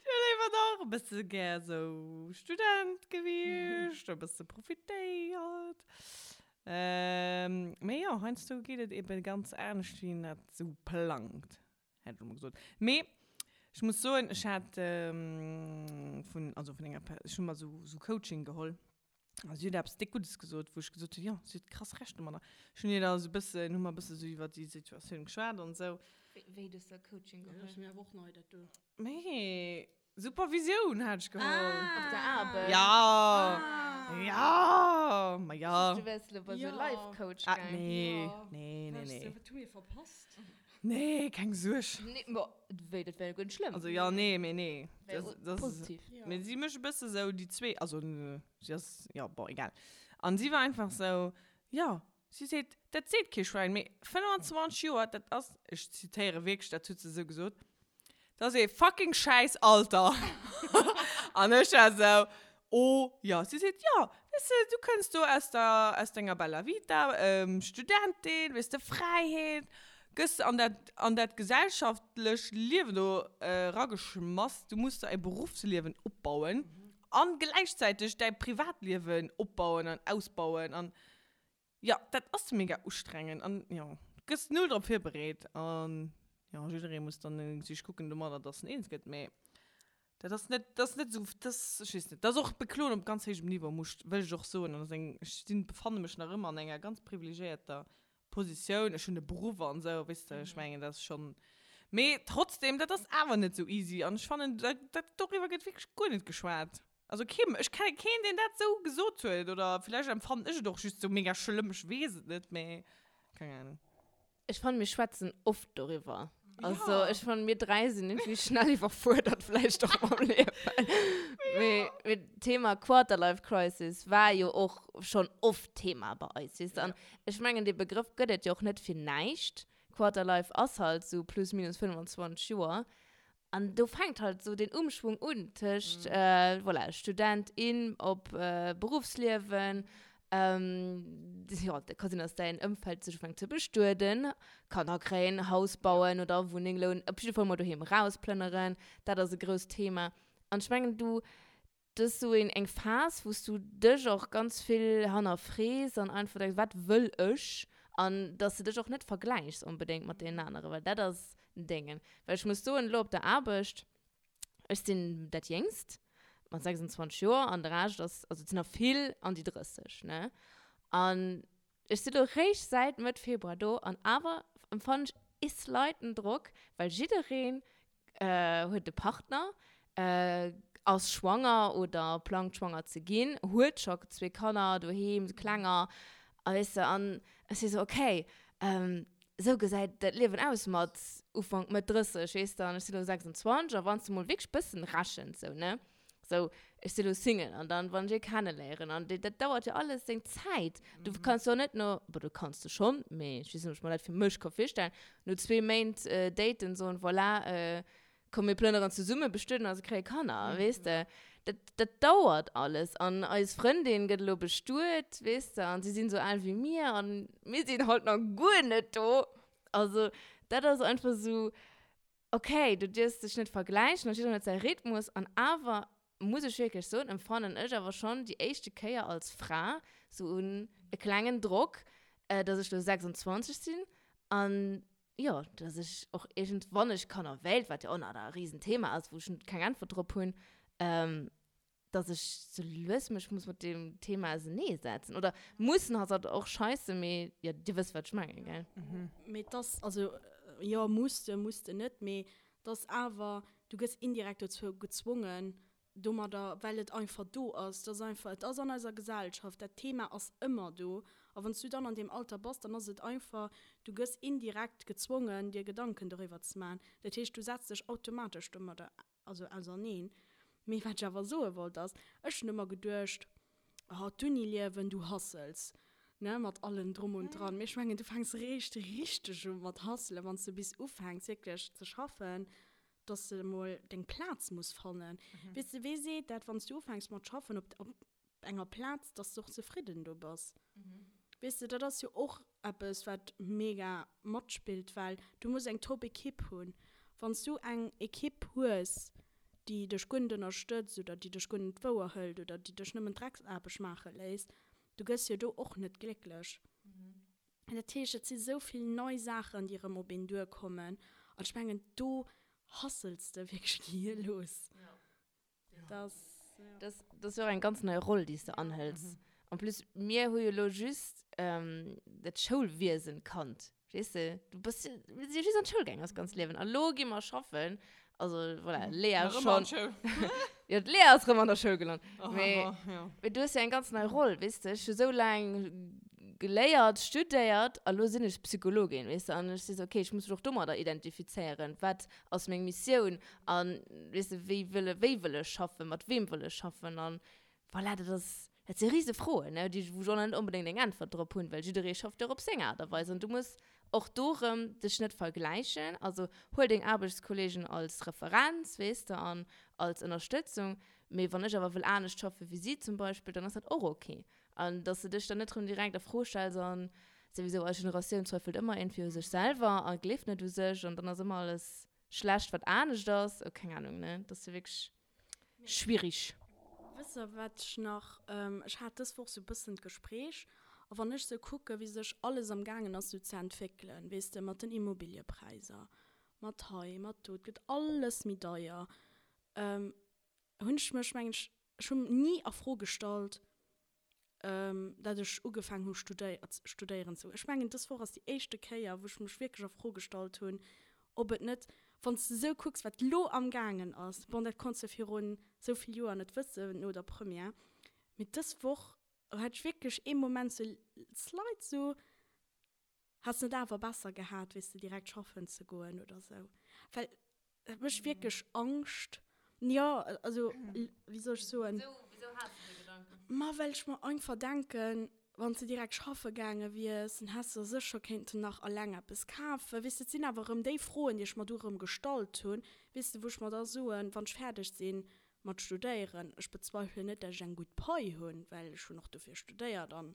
Ech wier léiwer nach e bësse gär esou Student gewiescht, e bësse profitéiert. Mee jo, heiansdo geet et ebe ganz anescht, wéi een dat esou plangt. Hätt ech emol gesot. Mee ech muss soen, ech hat vun, also vun enger, ech hu mer esou, esou Coaching geholl a si huet eppes déck Guddes gesot, wou ech gesot hunn, jo, si huet krass Recht domadder. Ech hunn hir da esou e bëssen, hu mer e bësse sou iwwer déi Situatioun geschwat an esou. Wéi, du hues da Coaching geholl? Dat ass mir awer och nei, dat do. Mee Supervisioun hat ech geholl. Ah. Op der Aarbecht? Ja. Ah. Ja, ma ja. Du wärst lo bei so Life Coach Ah, nee. Nee, nee, nee. Wat hu mir verpasst? Nee, keng Suerg. Nee, ma wéi, dat wär jo guer net schlëmm. Also ja, nee, mee nee. Wär Das, das, positiv. Mee si mécht e bësse sou déi zwee, also si ass, ja, bon, egal. An si war einfach sou, ja, si seet, dat seet kee Schwäin, mee 25 Joer, dat ass, ech zitéiere wierklech, dat huet se sou gesot, Dat ass ee fucking schäiss Alter. An ech war esou, oh ja. Si seet, jo, weess de, du kënns do aus der, aus denger Bella Vita, Studentin, weess de, Fräiheet, gëss an dat, an dat gesellschaftlech Liewen do erageschmass, du muss der e Beruffsliewen opbauen an gläichzäiteg däi Privatliewen opbauen an ausbauen an Jo, dat ass mega ustrengend an jo, du gëss null drop virbereet an jo, jidderee muss dann sech kucken domadder, dass en eens gëtt, mee dat ass net, dat ass net esou, dat ass, ech weess net, dat ass och Bekloen op ganz héijem Niveau, muss, wëll ech och soen an ass eng, ech sinn, befanne mech nach ëmmer an enger ganz privilegiéierter Positioun, ech hunn e Beruff an esou, weess de, ech mengen, dat ass schonn, mee trotzdem, dat ass awer net esou easy an ech fannen, dat, dat, doriwwer gëtt wierklech guer net geschwat. Also kee, ech kenne keen, deen dat sou gesot huet. Oder villäicht empfannen ech et och just sou mega schlëmm, ech weess et net, mee keng Ahnung. Ech fannen, mir schwätzen oft doriwwer. Also ech fannen, mir 3 sinn irgendwie schnell iwwerfuerdert vläicht och mam Liewen. Mee, mee d'Thema Quarterlife Crisis war jo och schonn oft Thema bei eis, weess de. An ech mengen, dee Begrëff gëtt et jo och net fir näischt. Quarterlife ass halt sou plus minus 25 Joer. An do fänkt halt sou den Umschwung un tëscht, voilà, Student, in op Beruffsliewen, jo, et ka sinn, dass däin Ëmfeld sech ufänkt ze bestueden, Kanner kréien, Haus bauen oder Wunneng lounen, op jidde Fall mol doheem erausplënneren, dat ass e grousst Thema. An ech mengen, du, Dat ass sou een eng Phas, wou s du dech och ganz vill hannerfrees an einfach denks, wat wëll ech? An dass de dech och net vergläichs onbedéngt mat deenen aneren, well dat ass en Déngen. Well ech muss soen, elo op der Aarbecht, ech sinn dat Jéngst mat 26 Joer an de Rescht ass, also et sinn der vill an déi 30, ne? An Ech si lo réischt säit Mëtt Februar do an awer empfannen ech ee slighten Drock, well jiddereen huet e Partner, ass schwanger oder plangt schwanger ze ginn, huet scho zwee Kanner doheem, klenger, a weess de, an ech si sou, okay. Esou gesäit dat Liewen aus mat Ufank, Mëtt 30, weess de, an ech sinn elo 26 a wann s de mol wierklech bëssen rechens sou, ne, sou, ech sinn elo Single an dann, wann ech ee kenneléieren an dat dauert jo alles seng Zäit. Du kanns jo net no, bon, du kanns de schonn, mee ech weess net, ob ech mer dat fir mech ka virstellen, no zwee Méint daten soen, voilà, komm mir plënneren zesummen, bestueden eis a kréie Kanner, weess de. Dat, dat dauert alles. An eis Frëndin gëtt elo bestuet, weess de, an si sinn esou al wéi mir an mir sinn halt nach guer net do. Also dat ass einfach esou, okay, du dierfs dech net vergläichen an jiddereen huet säi Rhythmus an awer muss ech wierklech soen, empfannen ech awer schonn déi éischte Kéier als Fra sou un e klengen Drock, dass ech lo 26 sinn an jo, dass ech och iergend, wann ech Kanner wéilt, wat jo och nach e Riesenthema ass, wou ech keng Äntwert drop hunn, dass ech sou lues mech muss mat deem Thema auserneesetzen. Oder mussen ass halt och scheisse, mee jo, dir wësst, wat ech mengen, gell? Mee et ass, also jo, muss de, muss de net, mee et ass awer, du gëss indirekt dozou gezwongen, domadder, well et einfach do ass, et ass einfach, et ass an eiser Gesellschaft, dat Thema ass ëmmer do. A wann s du dann an deem Alter bass, dann ass et einfach, du gëss indirekt gezwongen, dir Gedanken doriwwer ze maachen. Dat heescht, du setz dech automatesch domadder, also auserneen. Mee wat ech awer soe wollt ass, ech hunn ëmmer geduecht, oh, d'Uniliewen, du hustles, ne, mat allem drum und dran. Mee ech mengen, du fänks eréischt richteg u mat hustlen, wann s du bis ufänks wierklech ze schaffen, dass de emol deng Plaz muss fannen. Weess de, wee seet dat, wann s du ufänks mat schaffen op, op enger Plaz, dass de och zefridden do bass? Weess de, dat ass jo och eppes, wat mega matspillt, well du muss eng top Ekipp hunn. Wann s du eng Ekipp hues, déi dech guer net ënnerstëtzt oder déi dech guer net wouer hëlt oder déi dech nëmmen Drecksaarbecht maache léisst, du gëss jo do och net glécklech. Dat heescht, et si sou vill nei Saachen, déi erëm op een duerkommen. An ech mengen, do hustles de wierklech gehirlos. Dat ass, dat ass jo och eng ganz nei Roll, déi s de anhëls. En plus, mir hu jo elo just dat Schoulwiesen kannt. Weess de, du bass jo, mir si jo just an d'Schoul gaangen eist ganzt Liewen. A lo gi mer schaffen. Also voilà, Lea Nach ëmmer schonn. an d'Schoul. Jo, d'Lea ass rëm an der Schoul gelant. Oh, Mee, oh, ja. mee du hues jo eng ganz nei Roll, weess de. Ech hu sou laang geléiert, studéiert a lo sinn ech Psychologin, weess de. An ech si sou, okay, ech muss mech och domadder identifizéieren. Wat ass meng Missioun? An, weess de, wéi wëll, wéi wëll ech schaffen? Mat weem wëll ech schaffen? An voilà, dat ass, dat si rise Froen, ne, déi, wou ech och nach net onbedéngt eng Äntwert drop hunn, well jidderee schafft jo och op seng Aart a Weis. An du muss och do rëm dech net vergläichen. Also huel deng Aarbechtskolleegen als Referenz, weess de, an als Ënnerstëtzung. Mee wann ech awer wëll anescht schaffe wéi si zum Beispill, dann ass dat och ok. An dass de dech dann net rëm direkt a Fro stells an souwisou eis Generatioun zweifelt ëmmer iergendwéi u sech selwer a gleeft net u sech an dann ass ëmmer alles schlecht, wat anescht ass. Oh, keng Ahnung, ne? Dat ass jo wierklech Schwierig. Wësst der wat ech nach, ech hat dës Woch sou bëssen d'Gespréich, a wann ech sou kucke wéi sech alles am gaangen ass sou ze entwéckelen, weess de, mat den Immobiliëpräisser, mat hei, mat do, et gëtt alles méi deier, hunn ech mech, mengen ech, ech hunn ni a Fro gestallt, dat ech ugefaangen hu studéieren ze goen. Ech mengen, dës Woch ass déi éischte Kéier, wou ech mech wierklech a Fro gestallt hunn, ob et net, wann s de esou kucks, wat elo amgaangen ass, bon, dat konns de virun esou vill Joer net wëssen, no der Première, mee dës Woch hat ech wierklech ee Moment sou slight sou, Häss net awer besser gehat, weess de, direkt schaffen ze goen oder sou? Well et mécht wierklech Angscht. Jo, also, wéi soll ech soen? Wisou has de déi Gedanken? Ma well ech mer einfach denken, wann s de direkt schaffe gaange wiers, dann häss de der sécher kéinten nach alleng eppes kafen. Weess de, et sinn awer erëm déi Froen, déi ech mer du erëm gestallt hunn, weess de, wou ech mer da soen, wann ech fäerdeg sinn mat studéieren, ech bezweifelen net, dat ech eng gutt Pai hunn, well ech hunn och dofir studéiert an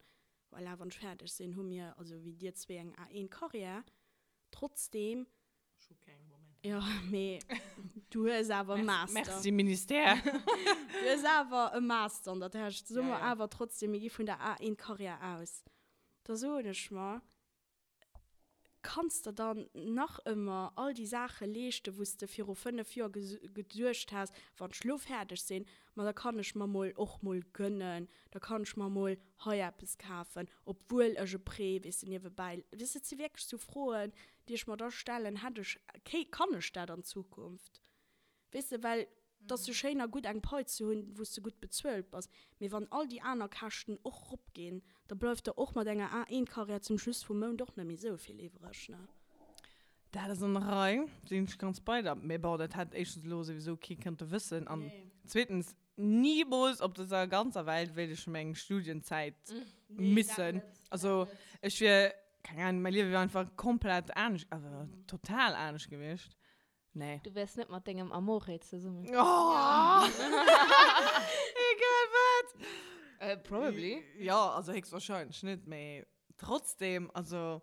Voilà, wann ech fäerdeg sinn, hu mir, also wéi dir zwee, eng A1-Karriär. Trotzdeem. Ech hu keng momentan. Jo, mee du hues awer e Master. Merci, Ministère. Du hues awer e Master an der Täsch. Soe mer awer trotzdeem, mir gi vun der A1-Karriär aus. Da soen ech mer, Kanns der dann nach ëmmer all déi Saache leeschten, wou s de viru 5 Joer geduecht has, wann ech lo fäerdeg sinn, ma da kann ech mer mol och mol gënnen, da kann ech mer mol hei eppes kafen, obwuel ech e Prêt, weess de, niewebäi. Weess de, et si wierklech sou Froen, déi ech mer da stellen, hätt ech, kann ech dat an Zukunft? Weess de, well. Et ass jo schéin a gutt eng Pai ze hunn, wou s de gutt bezuelt bass, mee wann all déi aner Käschten och ropginn, da bleift der och mat enger A1-Karriär zum Schluss vum Mount och net méi esou vill iwwreg, ne? Dat ass an der Rei, sinn ech ganz bei der. Mee bon, dat hätt éischtens elo souwisou kee kënnte wëssen an zweetens, nimools op dëser ganzer Welt wéilt ech meng Studienzäit missen. Also ech wier, keng Ahnung, mäi Liewe wier einfach komplett anescht, also total anescht gewiescht. Nee. Du wärs net mat dengem Amore zesummen. Oh! Egal wat! Äh, probably. Ja, also héchstwahrscheinlech net, mee trotzdem, also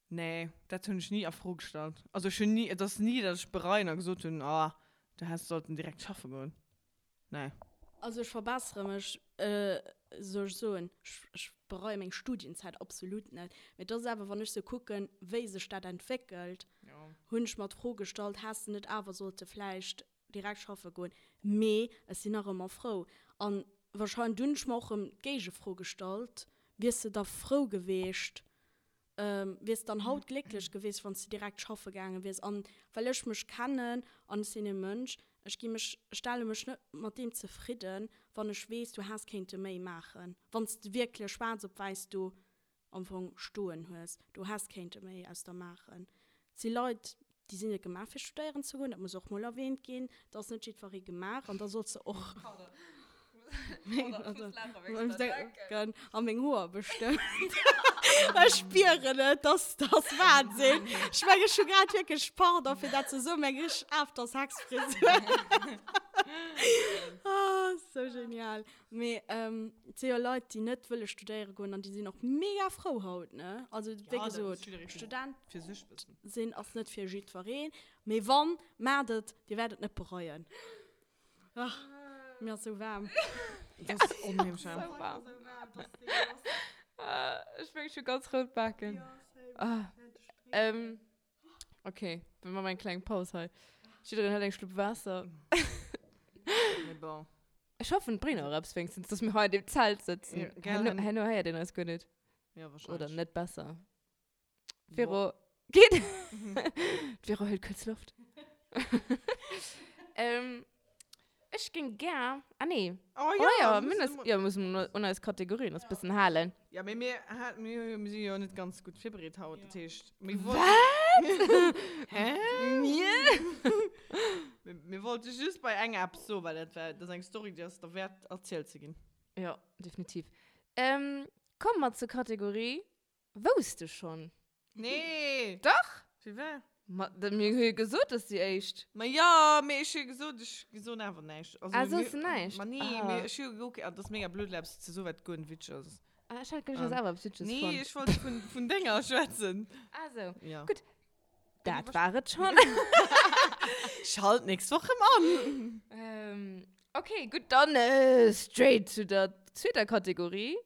nee, dat hunn ech ni a Fro gestallt. Also ech hunn ni, et ass ni, datt ech bereien a gesot hunn, ah, du häss sollten direkt schaffe goen. Nee. Also ech verbessere mech, soll ech soen, ech bereie meng Studienzäit absolut net. Mee et ass awer, wann ech sou kucken, wéi sech dat entwéckelt, hunn ech mer d'Fro gestallt, häss de net awer sollte vläicht direkt schaffe goen. Mee ech sinn nach ëmmer frou. An wahrscheinlech, dunn hunn ech mer och erëm d'Géigefro gestallt, wiers de da frou geweecht, Wiers dann haut glécklech gewiescht, wann s de direkt schaffe gaange wiers? An well ech mech kennen, an ech sinn e Mënsch, ech gi mech, ech stelle mech net mat deem zefridden, wann ech weess, du häss kéinte méi maachen. Wann s de wierklech schwaarz op wäiss do am Fong stoen hues, du häss kéinte méi aus der maachen. Et si Leit, déi sinn net gemaach fir studéieren ze goen, dat muss och mol erwähnt ginn, et ass net jiddweree gemaach an da solls de och a meng Hoer bestëmmt. Ech spieren et, dat ass Wahnsinn. Ech meng ech hu grad wierklech, pardon fir dat ze soen, meng richteg After-Sex-Frisur. Ah, sou genial. Mee et si jo Leit, déi net wëlle studéiere goen an déi sinn och mega frou haut, ne? Also wéi gesot, Student sinn ass net fir jiddwereen, mee wann, maacht et, dir wäert et net bereien. Ach, mir ass sou waarm. Et ass onheemlech waarm. Ech mengen, ech hu ganz rout Baken. Ok, mir maachen eng kleng Paus hei. Jiddereen hëlt eng Schlupp Waasser. Mee bon. Ech hoffen, et bréngt och eppes wéinstens, dass mir hei an deem Zelt sëtzen. Ja, gell? Herno, herno héiert een eis guer net. Ja, wahrscheinlech. Oder net besser. Vero, geet? D'Vero hëlt kuerz Loft. ähm, ech géing gär, ah nee. Oh Oh ja, ja, mir mir müssen hunn eis, ja, mir mussen un eis Kategorien eis bëssen halen. Ja, mee mir, mir, mir si jo net ganz gutt virbereet haut, dat heescht, mir Wat? Hä? Mir? Mir, mir wollte just bei enger eppes soen, well dat war, dat ass eng Story, déi ass derwäert erzielt ze ginn. Ja, definitiv. Ähm, komme mer zur Kategorie Wousst de schonn? Nee! Dach! Fir wat? Ma, da, mir hu jo gesot, dass déi éischt. Ma jo, mee ech hu jo gesot, ech soen awer näischt. Also, Ah, soos mir, de näischt? Ma nee, Ah. mee ech hu jo gekuckt, ah, dat ass mega blöd, elo eppes ze soen, wat guer net witzeg ass. Ah, ech hat geduecht, du häss awer eppes Witzeges Nee, fonnt. ech wollt vun, vun denger schwätzen. Ah, sou. Ja. Gutt. Dat war et schonn. Schalt nächst Woch rëm an! Ähm, okay, gutt, dann straight zu der zweeter Kategorie.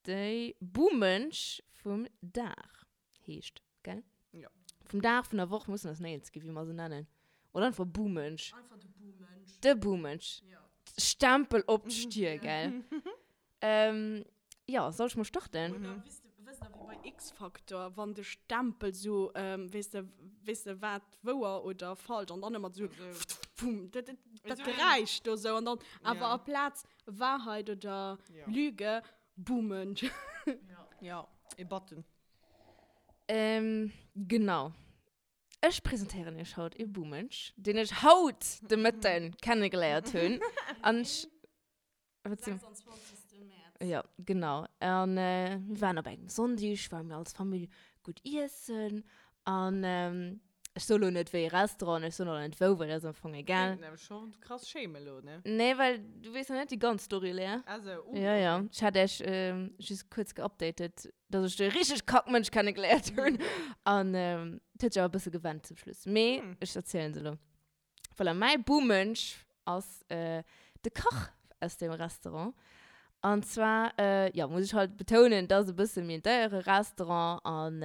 Déi Bumensch vum Dag heescht, gell? Jo. Vum Dag, vun der Woch, mussen eis néierens ginn, wéi mer se nennen. Oder einfach Bumensch. Einfach de Bumensch. De Bumensch. Jo. Stempel op d'Stier, gell? Ähm, jo, soll ech mol starten? Oder wéis de, wësst der, wéi bei X-Factor, wann de Stempel sou, weess de, weess de, wat wouer oder falsch, an dann ëmmer sou, pfum, dat, dat, dat Geräisch do sou, an dann awer aplaz Wahrheit oder Lüge, Bumensch. Jo, e Button. Ähm, genau. Ech presentéieren iech haut e Bumensch, deen ech haut de Mëtten kennegeléiert hunn. An ech. Wat sinn? 26. Mäerz. Jo, genau. An mir waren op engem Sonndeg, ware mir als Famill gutt iessen. An ech soe lo net wéi ee Restaurant, ech soen och net wou, well dat ass am Fong egal. Kéint nämlech scho krass schéime lo, ne? Nee, well du weess nach net déi ganz Story, Lea. Ah sou, uh, Ja, ja. okay. Ech hat iech just kuerz geupdatet, dass ech de richteg Kackmënsch kennegeléiert hunn. An et huet sech awer e bësse gewennt zum Schluss. Mee ech erzielen se elo. Voilà, mäi Bumensch ass de Kach aus deem Restaurant. An zwar, jo, muss ech halt betounen, dat ass e bësse méi en deiere Restaurant an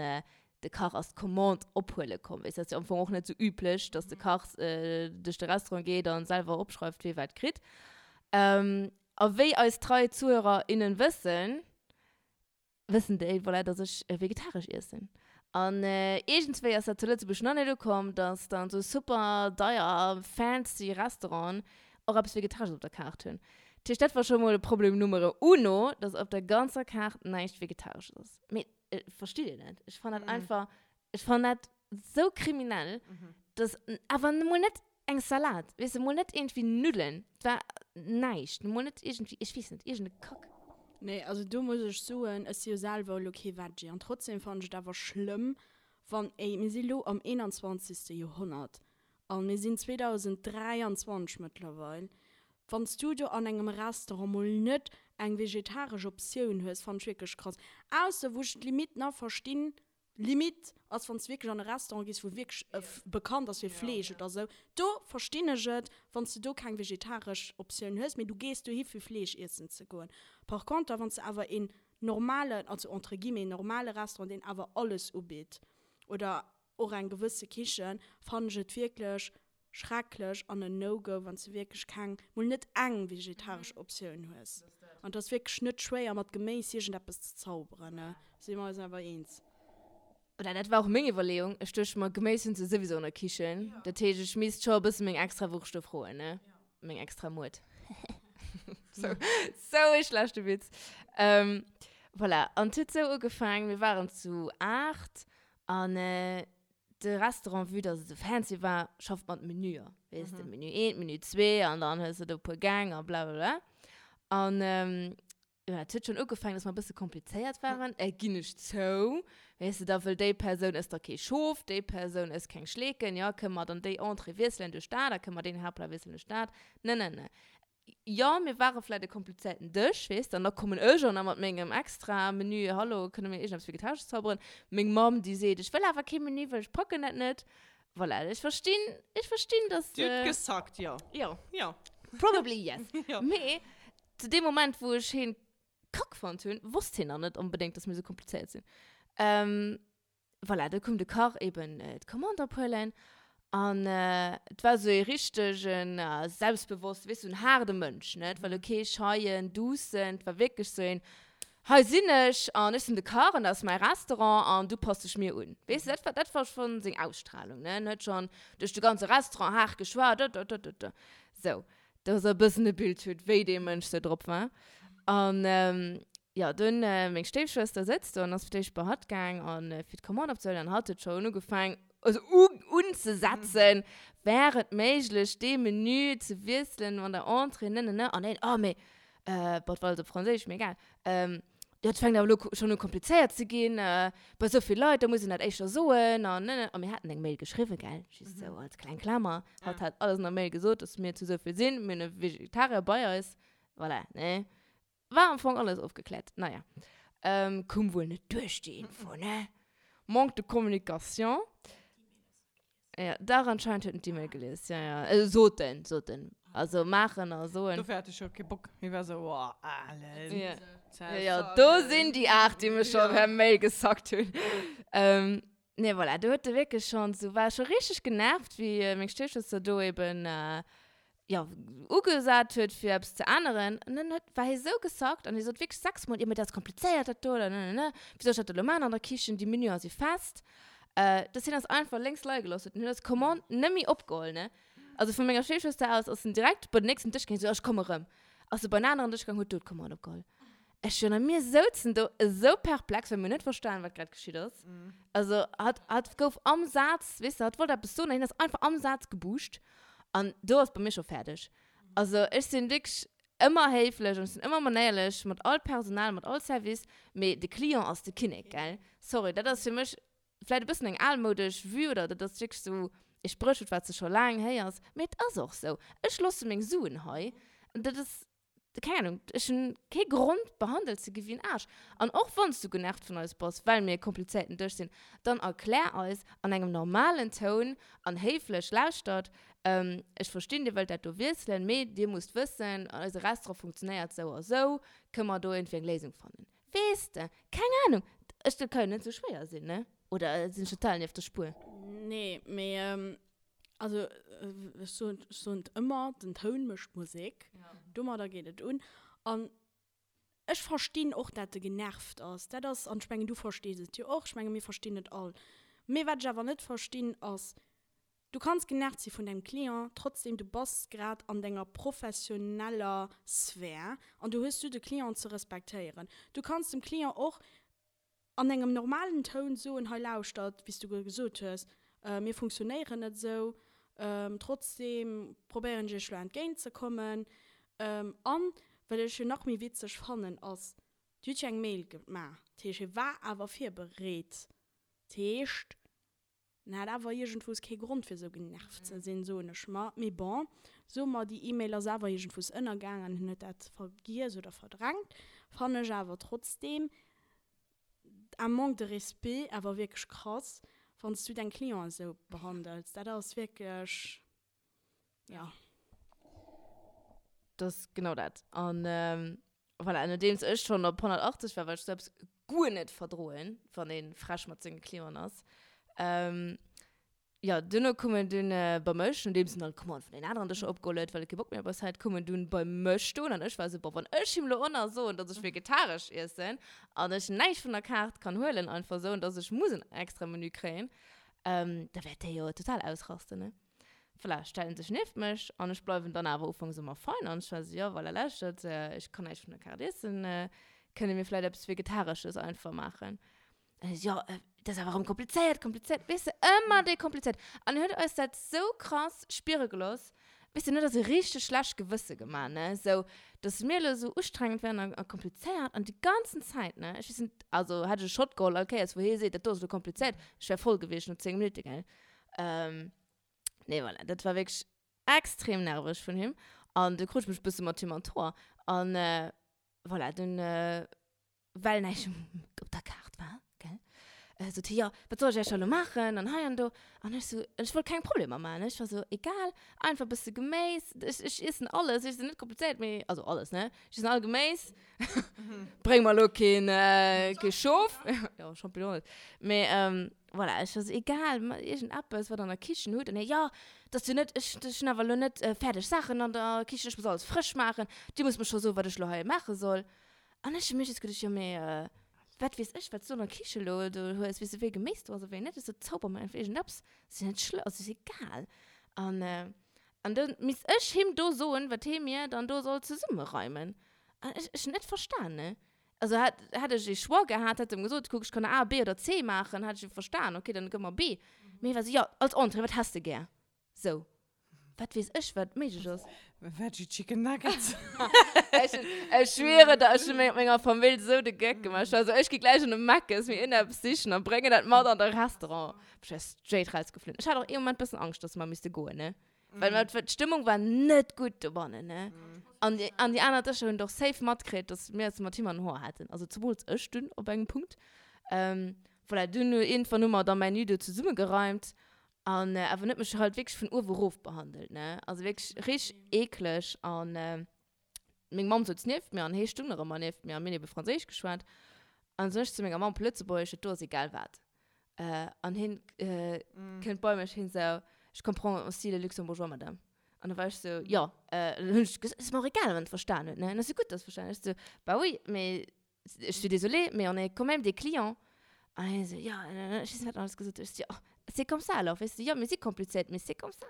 de Kach ass d'Commande ophuele komm. Weess, dat ass jo am Fong och net sou üblech, dass de Kach duerch de Restaurant geet an selwer opschreift, wee wat kritt. A wéi eis trei Zuhörer, innen wëssen, wëssen déi, voilà, dass ech vegetaresch iessen. An iergendswéi ass dat zu Lëtzebuerg nach net ukomm, dass dann sou super deier fancy Restauranten. och eppes Vegetaresches op der Kaart hunn. Dat heescht, dat war scho mol Problem Numero uno, dass op der ganzer Kaart näischt Vegetaresches ass. Mee verstitt Dir dat? Ech fannen dat einfach, ech fannen dat sou kriminell, dass awer mol net eng Salat, weess de, mol net iergendwéi Nuddelen, et war näischt, mol net iergendwéi, ech weess net, iergend e Kack. Nee, also do muss ech soen, ech si jo selwer elo kee Veggie an trotzdem fannen ech et awer schlëmm, wann, ey, mir si lo am 21. Joerhonnert a mir sinn 2023 mëttlerweil, wann s du do an engem Restaurant mol net eng vegetaresch Optioun hues, fannen ech wierklech krass. Ausser wou ech d'Limite nach verstinn, Limite ass wann s de wierklech an e Restaurant gees wou wierklech bekannt ass fir Fleesch oder sou, do verstinn ech et wann s de do keng vegetaresch Optioun hues, mee du gees dohi fir Fleesch iessen ze goen. Par conter wann s de awer een normalen, also entre guillemets normale Restaurant deen awer alles ubitt oder och eng gewësse Kichen, fannen ech et wierklech Schrecklech an en No-Go wann s de wierklech keng, mol net eng vegetaresch Optioun hues. An et ass wierklech net schwéier mat Geméis iergendeppes ze zauberen, ne? Si mer eis awer eens. Oder dat war och meng Iwwerleeung. Ech duecht mer, Geméis hunn se souwisou an der Kichen. Dat heescht, ech misst scho e bësse meng extra Wurscht do froen, ne? Meng extra Muert. Sou, sou e schlechte Witz. Voilà, an et huet sou ugefaangen, mir waren zu 8 an De Restaurant, vue dass et esou fancy war, schafft mat Menüer. Weess de, Menü eent, Menü zwee an dann hues de do e puer Gäng a blablabla. An jo, dat huet schonn ugefaangen, dass mer e bësse komplizéiert waren, ginn ech zou. Weess de, da wëll déi Persoun ësst da kee Schof, déi Persoun ësst keng Schleeken, jo, kënne mer dann déi Entrée wiesselen duerch dat a kënne mer deen Haaptplat wiesselen duerch dat? Ne, ne, ne. Jo, mir ware vläit e komplizéierten Dësch, weess de, an da kommen ech an da mat mengem extra Menü, hallo, kënne mir iergendeppes Vegetaresches zauberen? Meng Mamm, déi seet, ech wëll awer kee Menü, well ech packen dat net. Voilà, ech verstinn, ech verstinn, dass. Dir hutt gesackt, jo. Jo. Jo. Probably yes. Jo. Mee zu deem Moment, wou ech hien kack fonnt hunn, wosst hien nach net onbedéngt, dass mir esou komplizéiert sinn. Voilà, do koum de Kach eben d'Commande ophuelen an et war esou ee richtegen selbstbewosste, weess du, en haarde Mënsch, ne? Et war elo kee scheien, duussen, et war wierklech esou een, Hei sinn ech an ech sinn de Kach an dat ass mäi Restaurant an du pass dech mir un. Weess du, dat war, dat war schonn seng Ausstralung, ne? En huet schonn duerch de ganze Restaurant haart geschwat, dëdëdëdë. Sou. dass der e bëssen e Bild hutt, wéi dee Mënsch sou drop war. An jo, dunn, meng Stéifschwëster sëtzt do an ass fir d'éischt bei hatt gaang an fir d'Commande opzehuelen an hatt huet schonn ugefaang, also unzesetzen, wär et méiglech, dee Menü ze wiesselen an der Entrée, ne, ne, ne. An hien, oh, mee, bon, et war alles op Franséisch, mee egal, Dat fänkt awer elo schonn u komplizéiert ze ginn, bei esou vill Leit, da muss een dat éischter soen an ne ne. A mir haten eng Mail geschriwwen, gell, just esou als kleng Klamer. Hatt hat alles an der Mail gesot, dass mir zu esou vill sinn, mir hunn e Vegetarier bei eis, voilà, ne. War am Fong alles ofgekläert. Naja, koum wuel net duerch déi Info, ne. Manque de communication. Ja, dach, anscheinend huet en d'E-Mail gelies. Ja, ja. Äh, sot en, sot en. Also maachen a soen. Dofir hat ech jo kee Bock. Hie war sou, oh, Alen. Ja. Ja, ja, do sinn déi 8, déi mech scho per Mail gesackt hunn. Ähm, nee, voilà, do huet e wierklech schonn sou, war scho richteg genervt, wéi meng Stéifschwëster do eben, jo, ugesat huet fir eppes ze änneren an dann huet, war hie sou gesackt an hie sot wierklech 6 mol, jo mee dat ass komplizéiert dat do oder ne ne ne, wéi soll ech dat elo maachen an der Kichen, déi Menüer si fest, dass hien eis einfach lénks leie gelooss huet an huet eis Commande net méi opgeholl, ne. Also vu menger Stéifschwëster aus ass en direkt bei den nächsten Dësch gaangen, sou, ech komme rëm, ass e bei en aneren Dësch gaangen, huet do d'Commande opgeholl. Ech jo, a mir souzen do esou perplex, well mir hunn net verstanen, wat grad geschitt ass. Also hatt, hatt gouf am Saz, weess de, hatt wollt eppes soen an hien ass einfach am Saz gebuuscht. An do ass bei mir scho fäerdeg. Also ech sinn wierklech ëmmer héiflech an ech sinn ëmmer manéierlech mat all Personal, mat all Service, mee de Client ass de Kinnek, gell? Sorry, dat ass fir mech vläit e bëssen eng almoudesch Vue oder dat ass wierklech esou e Spréchwuert, wat s de scho laang héiers, mee et ass och esou. Ech loosse meng Suen hei an dat ass keng Ahnung, ech hunn kee Grond behandelt ze gi wéi en Aarsch. An och wann s du genervt vun eis bass, well mir e komplizéierten Dësch sinn, dann erklär eis an engem normalen Toun an héiflech, lauschtert, ech verstinn, dir wëllt dat do wiesselen, mee dir musst wëssen, eise Restaurant funktionéiert sou a sou, kënne mer do iergendwéi eng Léisung fannen? Weess de, keng Ahnung, ech, dat ka jo net sou schwéier sinn, ne? Oder sinn ech total nieft der Spuer? Nee, mee Also ech soen, ech soen et ëmmer, den Toun mécht d'Musek. Domadder geet et un. An ech verstinn och, dat e genervt ass. Dat ass, an ech mengen, du verstees et jo och, ech menge mir verstinn et all. Mee wat ech awer net verstinn, ass. Du kanns genervt si vun dengem Client, trotzdem du bass grad an denger professioneller Sphär an du hues du de Client ze respektéieren. Du kanns dem Client och an engem normalen Toun soen, hei lauschtert, wéi s du gesot hues, mir funktionéieren net esou, trotzdem probéieren ech iech elo entgéint ze kommen. An wat ech jo nach méi witzeg fannen ass, Dir hutt jo eng Mail gemaach, dat heescht hie war awer virbereet, dat heescht en hat awer iergendwous kee Grond fir esou genervt ze sinn, soen ech mer. Mee bon, soe mer déi E-Mail ass awer iergendwous ënnergaang an hien huet dat vergiess oder verdrängt, fannen ech awer trotzdem un manque de respect awer wierklech krass, wann s du deng Clienten esou behandels. Dat ass wierklech, jo. Dat ass genau dat. An voilà, nodeems ech schonn op 180 war, well ech esou eppes guer net verdroen, wann ee frech mat senge Clienten ass, Jo, duerno koum en dunn bei mech, nodeems en all d'Commande vun den aneren Dëscher opgeholl huet, well e kee Bock méi op eis hat, koum en dunn bei mech stoen an ech war esou, boah, wann ech him lo och nach soen, dass ech vegetaresch iessen an ech näischt vun der Kaart kann huelen einfach esou an dass ech muss en extra Menü kréien, da wäert dee jo total ausrasten, ne? Voilà, stellt en sech nieft mech an ech bleiwen dann awer ufanks ëmmer fein an ech war esou, jo, voilà, lauschtert, ech kann näischt vun der Kaart iessen, kënne mir vläicht eppes Vegetaresches einfach maachen? Jo, dat ass awer erëm komplizéiert, komplizéiert, weess de, ëmmer dee komplizéiert. An en huet eis dat sou krass spiere gelooss, weess de, en huet eis e richteg schlecht Gewësse gemaach, ne, sou, dass mir elo sou ustrengend wären a komplizéiert an déi ganzen Zäit, ne, ech weess net, also hätt ech e Shot geholl all Kéiers, wou hie seet, dat do ass elo komplizéiert, ech wär voll gewiescht no 10 Minutte, gell. Nee, voilà, dat war wierklech extrem nerveg vun him an du krut ech mech e bësse mat him an d'Hoer an voilà, dunn. well näischt op der Kaart war, gell, sot hie, jo, wat soll ech iech da lo maachen an hei an do. An ech sou, ech wollt keng Problemer maachen, ne, ech war sou, egal, einfach e bësse Geméis, ech, ech iessen alles, ech sinn net komplizéiert, mee, also alles, ne, ech iessen all Geméis, bréng mer lo keen, kee Schof, jo, Champignon net, mee voilà, ech war sou, egal, ma iergendeppes, wat der an der Kichen hutt. An hie, jo, dat ass jo net, ech, ech hunn awer lo net fäerdeg Saachen an der Kichen, ech muss alles frësch maachen, dir musst mer scho soen, wat ech lo hei maache soll. An ech hu mir just geduecht, jo mee wat weess ech, wat s du an der Kiche elo do hues, weess du wéi Geméis do ass a wéi net? Ech sot, zauber mer einfach iergendeppes, ass jo net schlëmm, also ass egal. An an da misst ech him do soen, wat hee mir dann do soll zesummereimen. An ech ech hunn net verstan, ne. Also hätt hätt ech ee Choix gehat, hätt em gesot, kuck ech kann A, B oder C maachen, hätt ech jo verstan, okay, dann gëff mer B. Mee hie war esou, jo als Entrée, wat häss de gär? Sou. Wat weess ech, wat méiglech ass? Veggie Chicken Nuggets. Ech, ech schwiere der, ech hu mat menger Famill sou de Geck gemaach. Ech war sou, ech gi gläich an de Mc's mir iergendeppes sichen a bréngen dat mat an de Restaurant. Ech wär straight rausgeflunn. Ech hat och ee Moment bëssen Angscht, dass mer misste goen, ne? Well mer, d'Stëmmung war net gutt dobannen, ne? An déi, an déi aner Dëscher hunn et och safe matkritt, dass mir eis mat him an den Hoer haten. Also zemools ech dunn op engem Punkt. Voilà, dunn iergendwann hu mer da mäin Menü do zesummegereimt. An awer en huet mech halt wierklech vun uewe rof behandelt, ne? Also wierklech richteg eekleg. An meng Mamm souz nieft mir an hee stung nach ëmmer nieft mir a mir hunn ebe Franséisch geschwat. An sot ech zu menger Mamm op Lëtzebuergesch, dat do ass egal wat. An hien kënnt bei mech, hien sou, Je comprends aussi le luxembourgeois, madame. An da war ech sou, jo. Dann hunn ech gesot, ass mer och egal, wann en et verstan huet, ne? An ass jo gutt, dass e verstan huet. Ech sou, bah oui, mais je suis désolée, mais on est quand même des clients. An hien esou, ja, ech weess net, wat en alles gesot huet. Ech sou, ja, c'est comme ça alors, weess de, jo, mir si komplizéiert, mee c'est comme ça.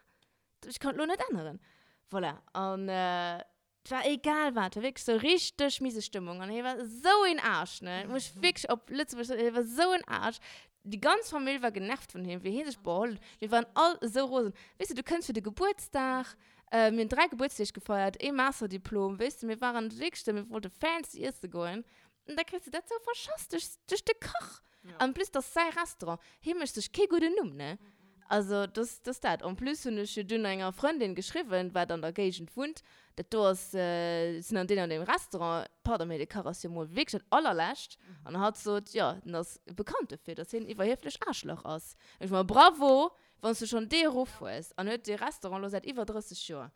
Ech kann et lo net änneren. Voilà, an et war egal wat, et war wierklech sou richteg miese Stëmmung. An hie war esou een Aarsch, ne, muss ech wierklech op Lëtzebuergesch soen, hie war esou en Aarsch. Déi ganz Famill war genervt vun him, wéi hie sech beholl huet. Mir waren all esou rosen. Weess de, du kënns fir de Gebuertsdag, mir hunn 3 Gebuertsdeeg gefeiert, ee Masterdiplom, weess de, mir waren wierklech esou, mir wollte fancy iesse goen. An da kriss de dat esou verschass duerch, duerch de Kach. En plus, dat ass säi Restaurant. Hie mécht sech kee gudden Numm, ne? Also, dass, dass dat. En plus hunn ech jo dunn enger Frëndin geschriwwen, wat an der Géigend wunnt, dat do ass, sinn an deem an deem Restaurant, pardon, mee de Kach ass jo mol wierklech dat allerlescht. An hatt sot, jo, en ass bekannt dofir, dass hien en iwwerhieflech Aarschlach ass. Ech mer, bravo, wann s du schonn dee Ruff hues. An huet dee Restaurant elo säit iwwer 30 Joer.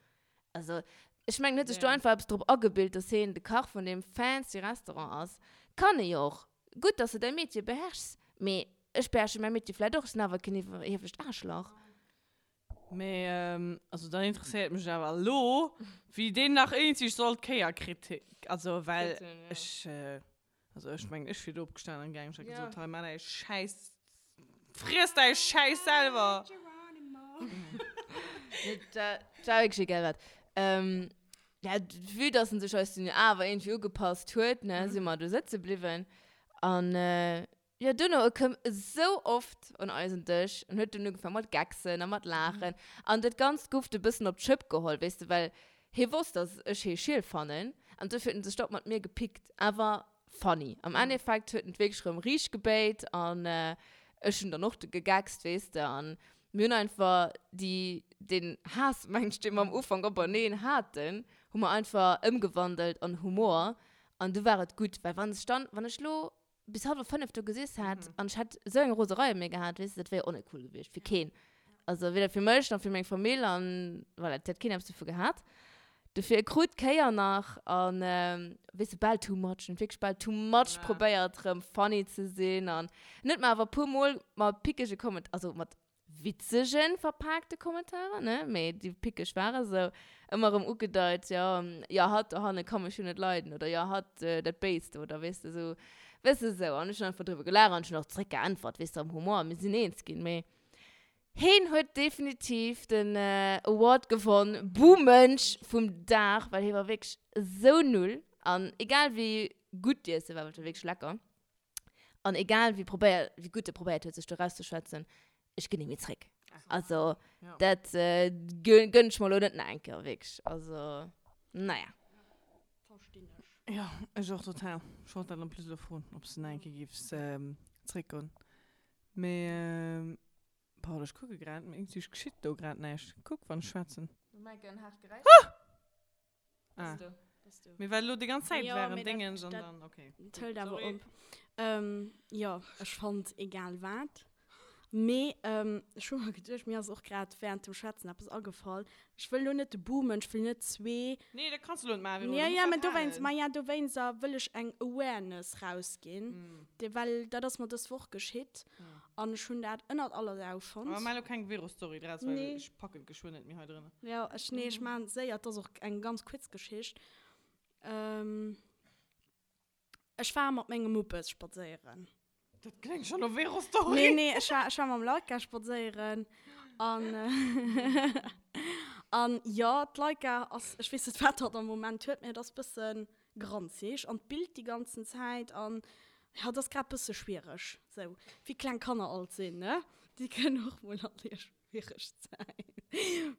Also, ech mengen, huet sech do einfach eppes drop agebilt, dass hien de Kach vun deem fancy Restaurant ass. Kann e jo och. Gutt, dass de däi Metier beherrschs, mee ech beherrsche mäi Metier vläit och, ech sinn awer keen iwwerhieflecht Aarschlach. Mee, also dann interesséiert mech awer elo, wéi deen nach iergendwéi soll d'Kéier kritt, also well ech, also ech mengen, ech wier do opgestanen an gaangen, ech hätt gesot, hei, maach däi Schäiss, friess däi Schäiss selwer. Nee, dat war wierklech egal wat. Ähm, ja, vue dass en sech eis dunn awer iergendwéi ugepasst huet, ne, si mer do sëtze bliwwen. An jo, duerno, e koum esou oft un eisen Dësch an huet dunn ugefaangen mat gecksen a mat laachen. An dat Ganzt gouf e bëssen op d'Schëpp geholl, weess de, well hie wosst, dass ech hie schiel fannen. An dofir huet en sech da och mat mir gepickt. Awer funny. Am Endeffekt huet en et wierklech erëm riicht gebéit an ech hunn dann och gegeckst, weess de. An mir hunn einfach déi, deen Haass, meng ech, dee mer am Ufank openeen haten, hu mer einfach ëmgewandelt an Humor an du war et gutt. Well wann ech dann, wann ech lo bis hallwer 5 do gesiess hätt an ech hätt esou eng Roserei op mir gehat, weess de, dat wär jo och net cool gewiescht fir keen. Also weder fir mech nach fir meng Famill an voilà, et hätt keen eppes dovu gehat. Dofir e krut d'Kéier nach an weess de bal too much, en huet wierklech bal too much probéiert rëm funny ze sinn an en huet mer awer puer mol mat pickege Komment, also mat witzegen verpaakte Kommentaren, ne, mee déi pickeg ware sou, ëmmer rëm ugedeit, jo, jo hatt dohanne ka mech jo net leiden oder jo hatt dat Béist oder weess de sou, weess de sou an ech hunn einfach driwwer gelaacht an ech hunn och zréck geäntwert, weess de, am Humor, mir sinn eens ginn, mee Heen huet definitiv den Award gewonn, Buhmënsch vum Dag, well hee war wierklech esou null. An egal wéi gutt d'Iesse war, well et war wierklech lecker, an egal wéi probéiert, wéi gutt e probéiert huet sech do rauszeschwätzen, ech ginn ni méi zréck. Also dat gönn ech mer elo net nach eng Kéier, wierklech. Also naja. Verstinn ech. Jo, ech och total. Ech wollt dat en plus elo froen, ob s de nach eng Kéier géifs zréckgoen. Mee, Paul, ech kucke grad, mee iergendwéi geschitt do grad näischt. Kuck, wann ech schwätzen. Du Maike, en haart Geräisch. Ah. Bass du. Bass du. Mee well elo déi ganz Zäit Jo, war en mee dat, Déngens an dat dann, okay. Et hëlt awer Sorry. op. Jo, ech fonnt egal wat. Mee ech hu mer geduecht, mir ass och grad während dem Schwätzen eppes agefall. Ech wëll lo net de Boomen, ech wëll net zwee. Nee, dat kanns de lo net maachen, Vero, Ja, du ja, muss mä dat dowéinst, halen. ma ja, dowéinst a wëll ech eng Awareness rausginn, de well dat ass mer dës Woch geschitt an ech hunn dat ënnert aller Sau fonnt. Awer maach lo keng Vero-Story draus, well Nee. ech packen et geschwënn net méi hei drënner. Jo, ech, nee, ech maachen et séier, et ass och eng ganz kuerz Geschicht. Ech war mat mengem Muppes spadséieren. Dat kléngt schon no Vero-Story. Nee, nee, ech war, ech war mam Laika spadséieren. An, an jo, d'Laika ass, ech weess net, wat hatt am Moment huet, mee et ass bësse granzeg an d'billt déi ganzen Zäit. An jo, et ass grad bësse schwiereg, sou wéi kleng Kanner alt sinn, ne? Déi kënnen och mol an hir schwiereg Zäit.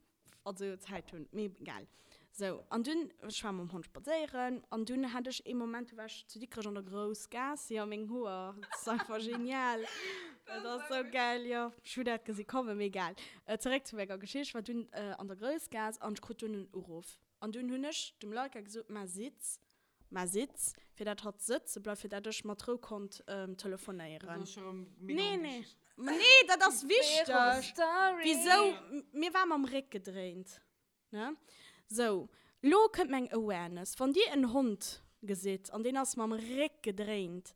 also Zäit hunn, mee egal. Sou, an dunn, ech war mam Hond spadséieren an dunn hat ech ee Moment, du war ech zu Dikrech an der Groussgaass, jo, meng Hoer, dat ass einfach genial, dat ass sou gäil, jo, ech hu dat gesi kommen, mee egal. Zeréck zu menger Geschicht, ech war dunn an der Groussgaass an ech krut dunn en Uruff an dunn hunn ech dem Laika gesot, Mä sitz, Mä sitz, fir dat hatt sëtze bleift, fir dat ech mat Rou konnt telefonéieren. Dat ass scho rëm mega Nee, nee. onwichteg. Nee, dat ass wichteg. Story. Wisou? Mir war mam Réck gedréint, ne? Sou, lo kënnt meng Awareness. Wann Dir en Hond gesitt an deen ass mam Réck gedréint,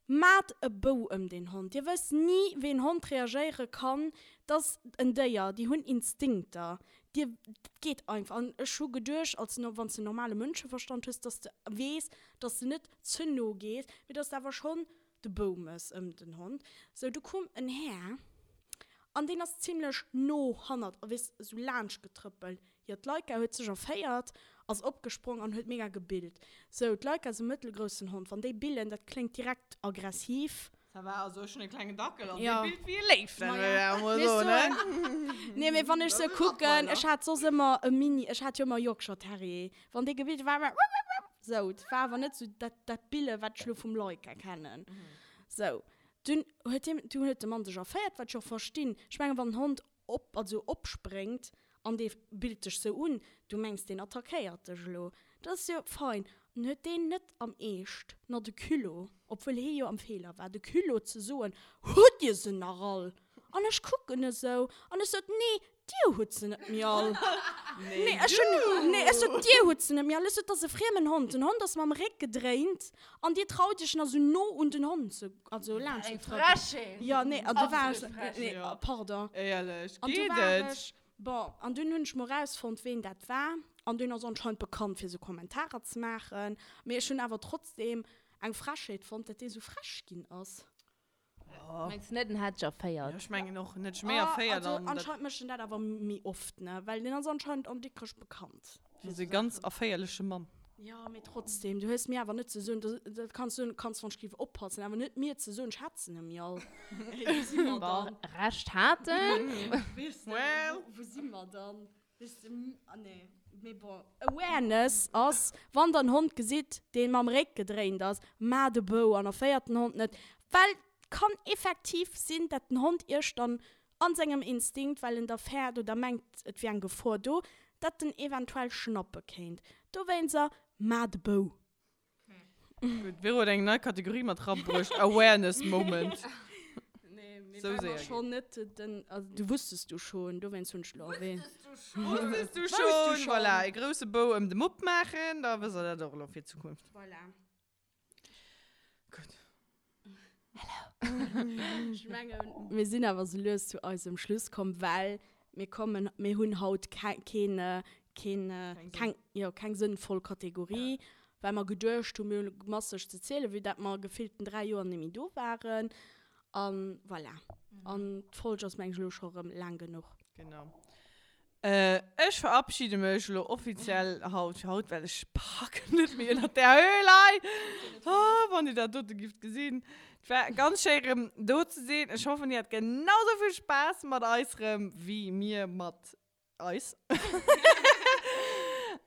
Maat e Bou ëm deen Hond. Dir wësst ni wéi en Hond reagéiere kann. 't ass en Déier, déi hunn Instinkter. Dir, dat geet einfach. An ech hu geduecht, als wann s de normale Mënscheverstand hues, dass de weess, dass de net ze no gees, mee dass de awer schonn de Bou mëss ëm den Hond. Sou, du koum en Här an deen ass zimlech no hannert, weess, esou laanscht getrëppelt. Jo, d'Laika huet sech erféiert, ass opgesprong an huet mega gebillt. Sou, d'Laika ass e mëttelgroussen Hond. Wann déi billen, dat kléngt direkt aggressiv. Ça va, also ech hunn e klengen Dackel an Jo. dee billt wéi e Léif, dat Maja. wëll ech awer mol Mee soen, soen. ne? Nee, mee wann ech Dat se ass e kucken, Rottweiler. ech hat soss ëmmer e Mini, ech hat jo ëmmer Yorkshire Terrier. Wann dee gebillt huet, war ëmmer wupp-wupp-wupp. Sou, et war awer net sou dat, dat Bille wat ech lo vum Laika kennen. Sou, dunn huet hien, dunn huet de Mann sech erféiert, wat ech och verstinn. Ech mengen, wann en Hond op, also opspréngt an dee billt dech sou un, du mengs deen attackéiert dech elo, dat ass jo fein, an huet deen net am Eescht na de Culot, obwuel hee jo am Feeler war, de Culot ze soen, hutt dir se nach all? An ech kucken esou an ech sot, nee, dir hutt se net méi all. Nee, ech hunn, nee, ech sot, dir hutt se net méi all. Ech sot, dat ass e friemen Hond, den Hond ass mam Réck gedréint an dir traut iech nach sou no un den Hond ze Also laanscht Eng de Trëppel. Frechheet! Ja, nee, an du war ech, Absolut frech. nee, Ja. pardon. Éierlech, An du geet war et? ech, bon, an dunn hunn ech mol rausfonnt, ween dat war. An deen ass anscheinend bekannt, fir sou Kommentarer ze maachen. Mee ech hunn awer trotzdem eng Frechheet fonnt, dat dee sou frech ginn ass. Jo. Mengs du net, en hätt dech erféiert? Jo, ech mengen och, en hätt dech méi erféiert. Also anscheinend mécht en dat awer méi oft, ne? Well deen ass anscheinend an Dikrech bekannt. Dat ass e ganz erféierleche Mann. Jo, mee trotzdem, du hues mir awer net ze soen, dat kanns du, kanns wann ech géif oppassen, awer net mir ze soen, ech hetzen em jo all. Wou si mer dann? Recht hat en. Weess de, Well. wou si mer dann? Weess de, ah nee, mee bon. Awareness ass, wann der en Hond gesitt, dee mam Réck gedréint ass, maacht e Bou an erféiert den Hond net, well et kann effektiv sinn, dat den Hond iech dann an sengem Instinkt, well en da fäert oder mengt, et wier eng Gefor do, datt en eventuell schnappe kéint. Dowéinster, Maacht e Bou! Gutt, d'Vero huet eng nei Kategorie mat rabruecht, Awareness Moment. Nee, mee Sou well séier mer schonn net den, also du wusstest du schon, dowéinst hunn ech elo erwähnt. Wusstest du Wusstest du schon? schon? Voilà, e grousse Bou ëm de Mupp maachen, da wësst der dat och elo fir d'Zukunft. Voilà. Gutt. Ech mengen, mir sinn awer sou lues zu eisem Schluss komm, well mir kommen, mir hunn haut keen, keen, keng, jo, keng sënnvoll Kategorie, well mer geduecht hunn, mir hunn masseg ze zielen, vue dat mer gefillten 3 Joer net méi do waren. A voilà. An d'Folg ass, meng ech, elo scho rëm laang genuch. Genau. Ech verabschiede mech elo offiziell haut fir haut, well ech packen net méi ënnert där Höhl hei. Oh, wann dir dat dote gifft gesinn. Et war ganz schéi rëm do ze sinn. Ech hoffen, dir hat genau sou vill Spaass mat eis rëm wéi mir mat eis.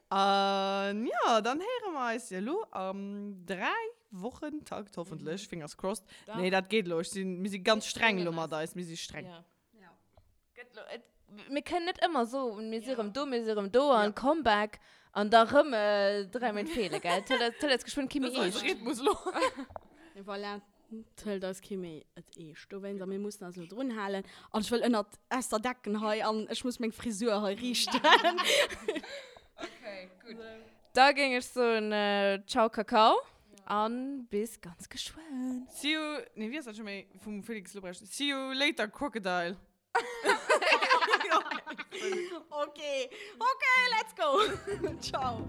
An jo, dann héiere mer eis jo elo am 3 Wochentakt hoffentlech, fingers crossed. Nee, dat geet elo. Ech sinn, mir si ganz streng elo mat eis. Mir si streng. Gëtt lo, et, mir kënnen net ëmmer soen, mir si rëm do, mir si rëm do an Comeback an da rëm 3 Méint feele, gell? Et hëlt eis geschwënn kee méi Dat ass eise eescht. Rhythmus elo. Voilà, et hëlt eis kee méi et eescht. Dowéinst, a mir mussen eis elo drun halen. An ech wëll ënnert, aus der Decken hei an ech muss meng Frisur hei riichten. Okay, gutt. Da géing ech soen, Ciao Kakao an bis ganz geschwënn. See you, nee wéi ass dat scho méi vum Felix Lobrecht? See you later Crocodile. Okay, okay, let's go. Ciao.